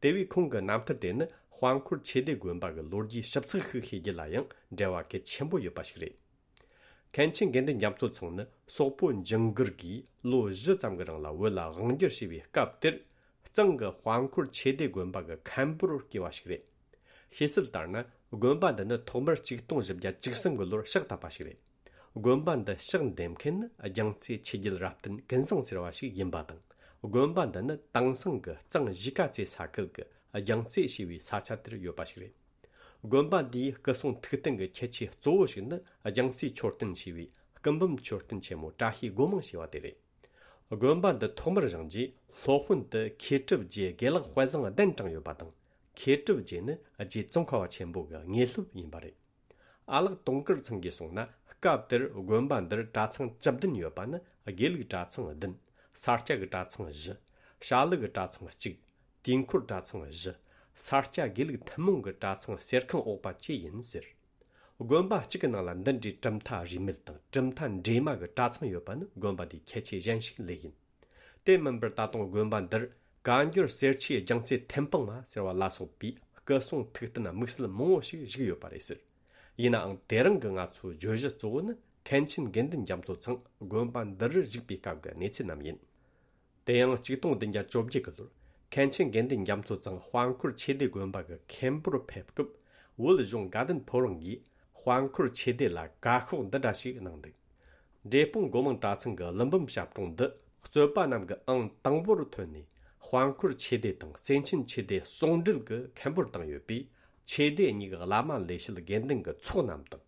དེ་བས་ཁོང་གི་རྣམ་ཐར་དེ་ནི་དཔལ་འཁོར་ཆོས་སྡེ་དགོན་པ་གི་ལོ་རྒྱུས་ཞིབ་ཚགས་ཤིག་ཤེས་རྒྱུ་ལ་ཡང་འབྲེལ་བ་གལ་ཆེན་པོ་ཡོད་པ་ཞིག་རེད། མཁན་ཆེན་དགེ་འདུན་རྒྱ་མཚོ་ཚང་ནི་སོག་པོ་ཇུན་གར་གྱིས་ལོ་བཞི་ཙམ་གྱི་རིང་ལ་བོད་ལ་དབང་སྒྱུར་བྱས་པའི་སྐབས་དེར། གཙང་གི་དཔལ་འཁོར་ཆོས་སྡེ་དགོན་པ་གི་མཁན་པོར་བསྐོས་པ་ཞིག་རེད། བཤད་སྲོལ་ལྟར་ན། དགོན་པ་འདི་ནི་ཐོག་མར་ཆིག་སྟོང་བཞི་བརྒྱ་བཅུ་གསུམ་གྱི་ལོར་ཕྱག་བཏབ་པ་ཞིག་རེད། དགོན་པ་འདི་ཕྱག་འདེབས་མཁན་ནི་རྒྱལ་རྩེ་ཆོས་རྒྱལ་རབ་བརྟན་ཀུན་བཟང་ཟེར་བ་ཞིག་ཡིན་པ་དང་། དགོན་པ་འདི་ནི་དེང་སང་གི་གཙང་གཞིས་ཀ་རྩེ་ས་ཁུལ་གྱི་རྒྱལ་རྩེ་ཞེས་པའི་ས་ཆ་དེར་ཡོད་པ་ཞིག་རེད། དགོན་པ་འདིའི་སྐུ་གསུང་ཐུགས་རྟེན་གྱི་ཁྱད་ཆོས་གཙོ་བོ་ཞིག་ནི། རྒྱལ་རྩེ་མཆོད་རྟེན་ཞེས་པའི་སྐུ་འབུམ་མཆོད་རྟེན་ཆེན་མོ་བཀྲ་ཤིས་སྒོ་མང་ཞེས་པ་དེ་རེད། དགོན་པ་འདི་ཐོག་མར་བཞེངས་རྗེས། སློབ་དཔོན་དུ་མཁས་གྲུབ་རྗེ་དགེ་ལེགས་དཔལ་བཟང་གདན་དྲངས་ཡོད་པ་དང་། མཁས་གྲུབ་རྗེ་ནི་རྗེ་ཙོང་ཁ་པ་ཆེན་པོ་གི་དངོས་སློབ་ཡིན་པ་རེད། ཨ་ལགས་དུང་དཀར་ཚང་གིས་གསུངས་ན། སྐབས་དེར་དགོན་པ་འདིར་གྲྭ་ཚང་བཅུ་བདུན་ཡོད་པ་ནི། དགེ་ལུགས་གྲྭ་ཚང་བདུན། ས་སྐྱ་གི་གྲྭ་ཚང་བཞི། བྱ་ལུགས་ཀྱི་གྲྭ་ཚང་གཅིག། དུས་འཁོར་གྲྭ་ཚང་བཞི། ས་སྐྱ་དགེ་ལུགས་ཐུན་མོང་གི་གྲྭ་ཚང་གསེར་ཁང་འོག་པ་བཅས་ཡིན་ཟེར། དགོན་པ་གཅིག་གི་ནང་ལ་འདི་འདྲའི་གྲུབ་མཐའ་རིས་མེད་དང་། གྲུབ་མཐའ་འདྲེས་མ་གི་གྲྭ་ཚང་ཡོད་པ་ནི་དགོན་པ་འདིའི་ཁྱད་ཆོས་གཞན་ཞིག་ལོས་ཡིན། དེ་མིན་པར་ད་དུང་དགོན་པ་འདིར་བཀའ་འགྱུར་གསེར་ཆོས་རྒྱལ་རྩེ་ཐེམ་སྤང་མ་ཟེར་བ་ལ་སོགས་པའི་སྐུ་གསུང་ཐུགས་རྟེན་དམིགས་བསལ་མང་བོ་ཞིག་བཞུགས་ཡོད་པ་རེད་ཟེར། ཡིན་ནའང་དེ་རིང་གི་ང་ཚོའི་བརྗོད་གཞི་གཙོ་བོ་ནི། མཁན་ཆེན་དགེ་འདུན་རྒྱ་མཚོ་ཚང་དགོན་པ་འདི་རུ་བཞུགས་པའི་སྐབས་ཀྱི་གནས་ཚུལ་རྣམས་ཡིན། དེ་ཡང་གཅིག་སྟོང་བདུན་བརྒྱ་བཅོ་བརྒྱད་ཀྱི་ལོར། མཁན་ཆེན་དགེ་འདུན་རྒྱ་མཚོ་ཚང་དཔལ་འཁོར་ཆོས་སྡེ་དགོན་པ་གི་མཁན་པོར་ཕེབས་སྐབས། བོད་གཞུང་དགའ་ལྡན་ཕོ་བྲང་གིས་དཔལ་འཁོར་ཆོས་སྡེ་ལ་བཀའ་ཤོག་འདི་འདྲ་ཞིག་གནང་འདུག། འབྲས་སྤུངས་སྒོ་མང་གྲྭ་ཚང་གི་ཀླུ་འབུམ་ཞབས་དྲུང་འདི། རྩོད་པ་རྣམས་ཀྱི་ཨང་དང་པོར་ཐོན་ནས། དཔལ་འཁོར་ཆོས་སྡེ་དང་བརྩེ་ཆེན་ཆོས་སྡེ་ཟུང་འབྲེལ་གྱི་མཁན་པོར་བཏང་ཡོད་པས། ཆོས་སྡེ་གཉིས་ཀྱི་བླ་མ་ལས་བྱེད་དགེ་འདུན་གྱི་ཚོགས་རྣམས་དང་།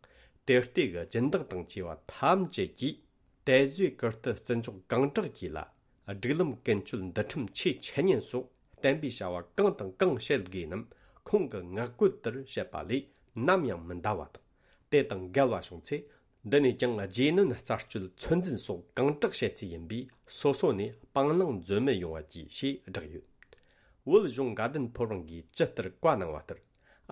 དེར་སྟེང་གི་སྦྱིན་བདག་དང་བཅས་པ་ཐམས་ཅད་ཀྱིས། དད་བཟོས་ཀིརྟི་བརྩི་འཇོག་གང་དྲག་གྱིས་ལ། སྒྲིག་ལམ་ཀུན་སྤྱོད་འདུལ་ཁྲིམས་ཆོས་འཆད་ཉན་སོགས་བསྟན་པའི་བྱ་བ་གང་དང་གང་བྱེད་དགོས་རྣམས་ཁོང་གི་ངག་བཀོད་ལྟར་བྱེད་པ་ལས་ནམ་ཡང་མི་འདའ་བ་དང་། དེ་དང་འགལ་བ་བྱུང་ཚེ། འདི་ནས་ཀྱང་རྗེས་གནོན་རྩད་གཅོད་ཚོད་འཛིན་སོགས་གང་དྲག་བྱེད་རྩིས་ཡིན་པས། སོ་སོ་ནས་སྤང་བླང་འཛོལ་མི་ཡོང་བ་གྱིས་ཞེས་བསྒྲགས་ཡོད། བོད་གཞུང་དགའ་ལྡན་ཕོ་བྲང་གིས་ཇི་ལྟར་བཀའ་གནང་བ་ལྟར།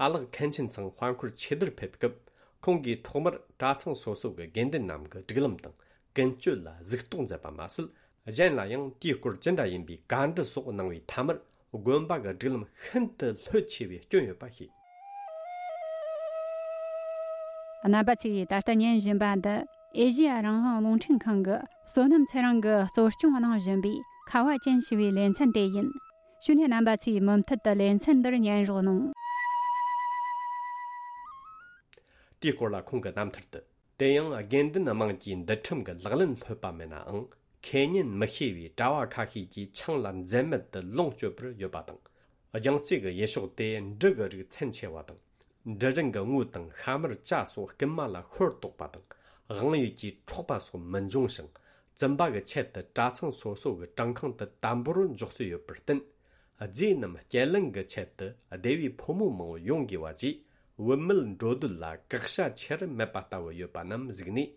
ཨ་ལགས་མཁན་ཆེན་ཚང་དཔལ་འཁོར་ཆོས་སྡེར་ཕེབས་སྐབས། ཁོང་གིས་ཐོག་མར་གྲྭ་ཚང་སོ་སོ་གི་དགེ་འདུན་རྣམས་ཀྱི་སྒྲིག་ལམ་དང་ཀུན་སྤྱོད་ལ་གཟིགས་རྟོག་མཛད་པ་མ་ཟད། གཞན་ལ་ཡང་དེའི་སྐོར་ཅི་འདྲ་ཡིན་པའི་བཀའ་འདྲི་སོགས་གནང་བའི་མཐའ་མར། དགོན་པ་གི་སྒྲིག་ལམ་ཤིན་ཏུ་ལྷོད་ཆེ་བའི་སྐྱོན་ཡོད་པ་ཤེས། རྣམ་པ་ཚོས་ད་ལྟ་ཉན་བཞིན་པ་འདི། ཨེ་ཤེ་ཡ་རང་དབང་རླུང་འཕྲིན་ཁང་གི་བསོད་ནམས་ཚེ་རིང་གིས་གཙོ་སྐྱོང་གནང་བཞིན་པའི་ཁ་བ་ཅན་ཞེས་པའི་ལེ་ཚན་དེ་ཡིན། བྱས་ནས་རྣམ་པ་ཚོས་མུ་མཐུད་དུ་ལེ་ཚན་འདིར་ཉན་རོགས་གནང་། དེའི་སྐོར་ལ་ཁོང་གི་རྣམ་ཐར་དུ། དེ་ཡང་དགེ་འདུན་དམངས་ཀྱིས་འདུལ་ཁྲིམས་ཀྱི་ལག་ལེན་ལྷོད་པ་མེད་ནའང་། ཁེ་ཉེན་མི་ཤེས་པའི་གྲྭ་བ་ཁ་ཤས་ཀྱིས་ཆང་ལ་འཛེམ་མེད་དུ་ལོངས་སྤྱོད་པར་ཡོད་པ་དང་། རྒྱལ་རྩེ་གི་ཡུལ་ཕྱོགས་དེ་འབྲུ་གི་རིགས་ཚན་ཆེ་བ་དང་། འབྲུ་རིན་གྱི་དངུལ་དང་ཤ་མར་ཇ་སོགས་རྐུན་མ་ལ་ཤོར་དོགས་པ་དང་། དབང་ཡོད་ཀྱིས་འཕྲོག་པ་སོགས་མི་འབྱུང་ཞིང་། བཙུན་པ་གི་ཆེད་དུ་གྲྭ་ཚང་སོ་སོ་གི་བྲང་ཁང་དུ་དམ་པོར་འཇོག་སྲོལ་ཡོད་པར་བརྟེན། རྫས་རྣམས་སྐྱེལ་ལེན་གྱི་ཆེད་དུ་སྡེ་བའི་ཕོ་མོ་མང་བོ་ཡོང་དགོས་པ་བཅས། བུད་མེད་འགྲོ་འདུག་ལ་བཀག་ཆ་ཆེར་མེད་པ་ལྟ་བུ་ཡོད་པ་རྣམས་གཟིགས་ནས།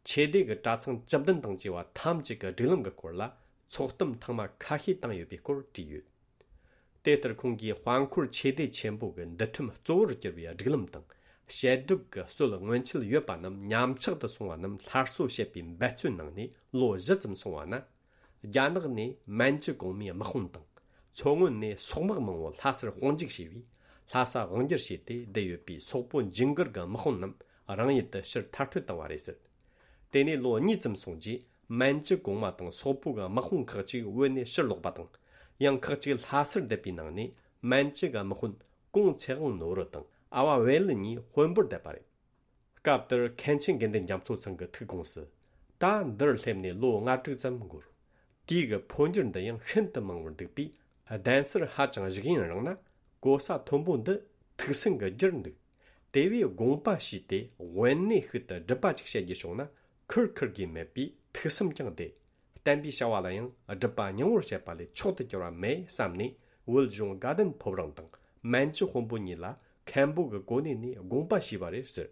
ཆོས་སྡེ་གི་གྲྭ་ཚང་བཅུ་བདུན་དང་བཅས་པ་ཐམས་ཅད་ཀྱི་སྒྲིག་ལམ་གྱི་སྐོར་ལ་ཚོགས་གཏམ་ཐེངས་མ་ཁ་ཤས་བཏང་ཡོད་པའི་སྐོར་བྲིས་ཡོད། དེ་ལྟར་ཁོང་གིས་དཔལ་འཁོར་ཆོས་སྡེ་ཆེན་པོ་གི་འདུལ་ཁྲིམས་གཙོ་བོར་གྱུར་པའི་སྒྲིག་ལམ་དང་། བཤད་སྒྲུབ་ཀྱི་སྲོལ་སྔོན་ཆད་ཡོད་པ་རྣམས་ཉམས་ཆག་ཏུ་སོང་བ་རྣམས་སླར་གསོ་བྱེད་པའི་འབད་བརྩོན་གནང་ནས་ལོ་བཞི་ཙམ་སོང་བ་ན། རྒྱ་ནག་ནས་མན་ཇུ་གོང་མའི་དམག་དཔུང་དང་། མཚོ་སྔོན་ནས་སོག་དམག་མང་བོ་ལྷ་སར་དཔུང་འཇུག་བྱས་པས། ལྷ་ས་དབང་སྒྱུར་བྱས་ཏེ་བསྡད་ཡོད་པའི་སོག་པོ་ཇིང་གུར་གྱི་དམག་དཔུང་རྣམས་རང་ཡུལ་དུ་ཕྱིར་མཐར་སྐྲོད་བཏང་བ་རེད་ཟེར། དེ་ནས་ལོ་གཉིས་ཙམ་སོང་རྗེས། མན་ཇུ་གོང་མ་དང་སོག་པོ་གི་དམག་དཔུང་ཁག་ཅིག་བོད་ནས་ཕྱིར་ལོག་པ་དང་། ཡང་ཁག་ཅིག་ལྷ་སར་བསྡད་པའི་ནང་ནས་མན་ཇུ་གི་དམག་དཔོན་ཀོང་ཚེ་དབང་ནོར་བུ་དང་ཨ་བ་བེ་ལི་གཉིས་དཔོན་པོར་བསྡད་པ་རེད། སྐབས་དེར་མཁན་ཆེན་དགེ་འདུན་རྒྱ་མཚོ་ཚང་གི་ཐུགས་དགོངས་སུ། ད་འདིར་སླེབས་ནས་ལོ་ལྔ་དྲུག་ཙམ་འགོར། དུས་ཀྱི་འཕོ་འགྱུར་འདི་ཡང་ཤིན་ཏུ་མང་བར་འདུག་པས། གདན་སར་ཧ་ཅང་བཞུགས་ཡུན་རིང་ན། གོ་ས་མཐོན་པོ་འདི་ཐུགས་སེམས་ཀྱི་རྒྱུར་འདུག་དེ་བས་དགོངས་པ་ཞུས་ཏེ་དབེན་གནས་ཤིག་ཏུ་སྒྲུབ་པ་ཅིག་བྱེད་རྒྱུ་བྱུང་ན། ཁུར་ཁུར་དགོས་མེད་པས་ཐུགས་སེམས་ཀྱང་བདེ། བསྟན་པའི་བྱ་བ་ལ་ཡང་སྒྲུབ་པ་སྙིང་བོར་བྱེད་པ་ལས་མཆོག་ཏུ་གྱུར་བ་མེད་བསམ་ནས། བོད་གཞུང་དགའ་ལྡན་ཕོ་བྲང་དང་མན་ཇུ་དཔོན་པོ་གཉིས་ལ་མཁན་པོ་གི་གོ་གནས་ནས་དགོངས་པ་ཞུས་པ་རེད་ཟེར།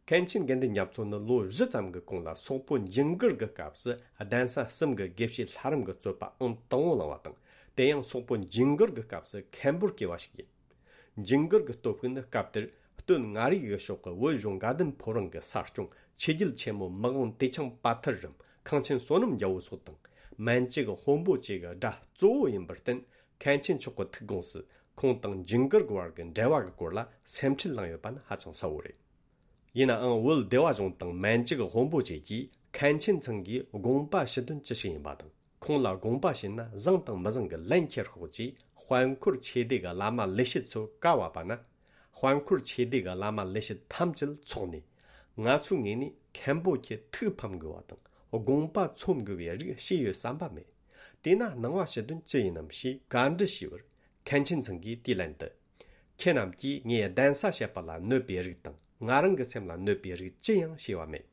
མཁན་ཆེན་དགེ་འདུན་རྒྱ་མཚོ་ནི་ལོ་བཞི་ཙམ་གྱི་གོང་ལ་སོག་པོ་ཇིང་གུར་གྱི་སྐབས་སུ་གདན་ས་གསུམ་གྱི་དགེ་བཤེས་ལྷ་རམས་ཀྱི་རྩོད་པ་ཨང་དང་པོ་བླངས་པ་དང་། དེ་ཡང་སོག་པོ་ཇིང་གུར་གྱི་སྐབས་སུ་མཁན་པོར་གྱུར་པ་ཞིག་ཡིན། ཇིང་གུར་གྱི་སྟོབས་ཤུགས་ནི་སྐབས་དེར་སྟོད་མངའ་རིས་ཀྱི་ཕྱོགས་ཀྱི་བོད་གཞུང་དགའ་ལྡན་ཕོ་བྲང་གི་ས་སྐྱོང་ཆོས་རྒྱལ་ཆེན་མོ་མི་དབང་ཏེ་ཆང་པ་ཐར་རམ་ཁང་ཆེན་བསོད་ནམས་རྒྱལ་པོ་སོགས་དང་། མན་ཇུ་གི་དཔོན་པོ་བཅས་ཀྱི་དགྲ་གཙོ་བོ་ཡིན་པར་བརྟེན། མཁན་ཆེན་མཆོག་གི་ཐུགས་དགོངས་སུ་ཁོང་དང་ཇིང་གུར་གྱི་བར་གྱི་འབྲེལ་བ་གྱི་སྐོར་ལ་སེམས་ཁྲལ་གནང་ཡོད་པ་ནི་ཧ་ཅང་གསལ་བོ་རེད། ཡིན་ནའང་བོད་སྡེ་བ་གཞུང་དང་མན་ཇུ་གི་དཔོན་པོ་བཅས་ཀྱིས་མཁན་ཆེན་ཚང་གིས་དགོངས་པ་ཞུ་དོན་ཅི་ཞིག་ཡིན་པ་དང་། ཁོང་ལ་དགོངས་པ་ཞུས་ན་བཟང་དང་མི་བཟང་གི་ལན་ཁྱེར་ཤོག་ཅེས་དཔལ་འཁོར་ཆོས་སྡེ་གི་བླ་མ་ལས་བྱེད་ཚོ་བཀའ་ཕབ་པ་ན། དཔལ་འཁོར་ཆོས་སྡེ་གི་བླ་མ་ལས་བྱེད་ཐམས་ཅད་ཚོགས་ནས། ང་ཚོའི་ངོས་ནས་མཁན་པོ་ཁྱེད་ཐུགས་ཕམ་དགོས་པ་དང་དགོངས་པ་ཚོམ་དགོས་པའི་རིགས་བྱས་ཡོད་བསམ་པ་མེད། དེས་ན་གནང་བ་ཞུ་དོན་ཅི་ཡིན་ནམ་ཞེས་བཀའ་འདྲི་ཞུས་པར། མཁན་ཆེན་ཚང་གིས་དེའི་ལན་དུ། ཁྱེད་རྣམས་ཀྱིས་ངའི་གདན་ས་བཤད་པ་ལ་གནོད་པའི་རིགས་དང་ང་རང་གི་སེམས་ལ་གནོད་པའི་རིགས་ཅི་ཡང་བྱས་པ་མེད།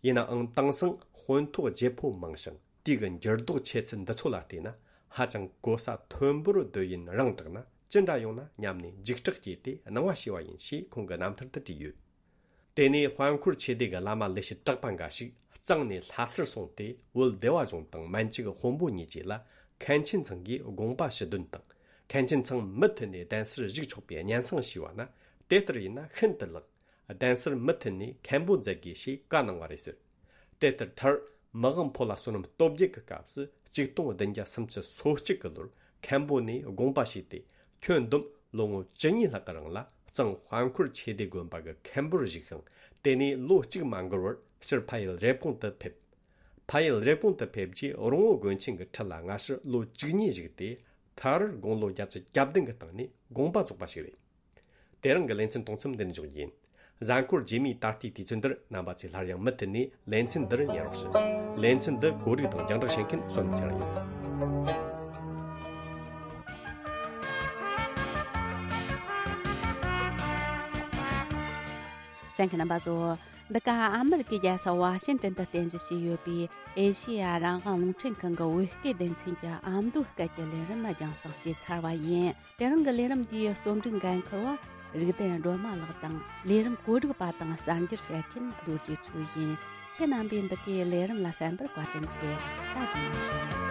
ཡིན་ནའང་དེང་སང་དཔོན་ཐོག་བརྗེ་པོ་མང་ཞིང་དུས་ཀྱི་འགྱུར་ལྡོག་ཆེ་ཚུལ་འདི་ཚོ་ལ་བལྟས་ན་ཧ་ཅང་གོ་ས་མཐོན་པོར་སྡོད་ཡུན་རིང་དྲགས་ན་ཅི་འདྲ་ཡོང་ན་སྙམ་ནས་འཇིགས་སྐྲག་སྐྱེས་ཏེ་གནང་བ་ཞུས་པ་ཡིན་ཞེས་ཁོང་གི་རྣམ་ཐར་དུ་བྲིས་ཡོད། དེ་ནས་དཔལ་འཁོར་ཆོས་སྡེ་གི་བླ་མ་ལས་བྱེད་གྲགས་པ་འགའ་ཞིག་གཙང་ནས་ལྷ་སར་སོང་སྟེ་བོད་སྡེ་བ་གཞུང་དང་མན་ཇུ་གི་དཔོན་པོ་གཉིས་བཅས་ལ་མཁན་ཆེན་ཚང་གིས་དགོངས་པ་ཞུ་དོན་དང་། མཁན་ཆེན་ཚང་མུ་མཐུད་ནས་གདན་སར་བཞུགས་ཆོག་པའི་སྙན་སེང་ཞུས་པ་ན། དེ་ལྟར་ཡིན་ན་ཤིན་ཏུ་ལེགས། གདན་སར་མུ་མཐུད་ནས་མཁན་པོ་མཛད་དགོས་ཞེས་བཀའ་གནང་བ་རེད་ཟེར། དེ་ལྟར་མཐར་མི་དབང་ཕོ་ལྷ་བསོད་ནམས་སྟོབས་རྒྱས་ཀྱི་སྐབས་སུ་ཆིག་སྟོང་བདུན་བརྒྱ་སུམ་ཅུ་སོ་གཅིག་གི་ལོར་མཁན་པོ་ནས་དགོངས་པ་ཞུས་ཏེ། ཁྱོན་བསྡོམས་ལོ་ངོ་བཅུ་གཉིས་ལྷག་གི་རིང་ལ་གཙང་དཔལ་འཁོར་ཆོས་སྡེ་དགོན་པ་གི་མཁན་པོར་བཞུགས་ཤིང་། དེ་ནས་ལོ་གཅིག་མ་འགོར་བར་ཕྱིར་ཕ་ཡུལ་རེབ་གོང་དུ་ཕེབས། ཕ་ཡུལ་རེབ་གོང་དུ་ཕེབས་རྗེས་རོང་བོ་དགོན་ཆེན་གྱི་ཁྲི་ལ་སྔ་ཕྱིར་ལོ་བཅུ་གཉིས་བཞུགས་ཏེ། མཐར་དགུང་ལོ་བརྒྱད་ཅུ་གྱ་བདུན་གྱི་སྟེང་ནས་དགོངས་པ་རྫོགས་པ་ཞིག་རེད། དེ་རིང་གི་ལེ་ཚན་གཏོང་མཚམས་འདི་ནས་འཇོག་རྒྱུ་ཡིན། གཟའ་འཁོར་རྗེས་མའི་ད་ལྟའི་དུས་ཚོད་འདིར་རྣམ་པ་ཚོས་སླར་ཡང་མུ་མཐུད་ནས་ལེ་ཚན་འདིར་ཉན་རོགས་ཞུ། ལེ་ཚན་འདི་གོ་སྒྲིག་དང་རྒྱང་བསྒྲགས་བྱེད་མཁན་བསོད་ནམས་ཚེ་རིང་ཡིན། གསན་མཁན་རྣམ་པ་ཚོ། འདི་ག་ཨ་མི་རི་ཀའི་རྒྱལ་ས་ཝ་ཤིན་ཏན་དུ་རྟེན་གཞི་བྱས་ཡོད་པའི་ཨེ་ཤེ་ཡ་རང་དབང་རླུང་འཕྲིན་ཁང་གི་བོད་སྐད་སྡེ་ཚན་གྱི་ཨ་མདོའི་སྐད་ཀྱི་ལས་རིམ་རྒྱང་སྲིང་བྱས་ཚར་བ་ཡིན། དེ་རིང་གི་ལས་རིམ་འདིའི་རྩོམ་སྒྲིག་འགན་འཁུར་བ་རིག་ལྡན་སྒྲོལ་མ་ལགས་དང་། ལས་རིམ་གོ་སྒྲིག་པ་དང་གསར་འགྱུར་བཤད་མཁན་རྡོ་རྗེ་མཚོ་ཡིན། ཁྱེད་རྣམ་པས་འདི་གའི་ལས་རིམ་ལ་གསན་པར་བཀའ་དྲིན་ཆེ། ད་དེ་ནས་ཞུ་ཡིན།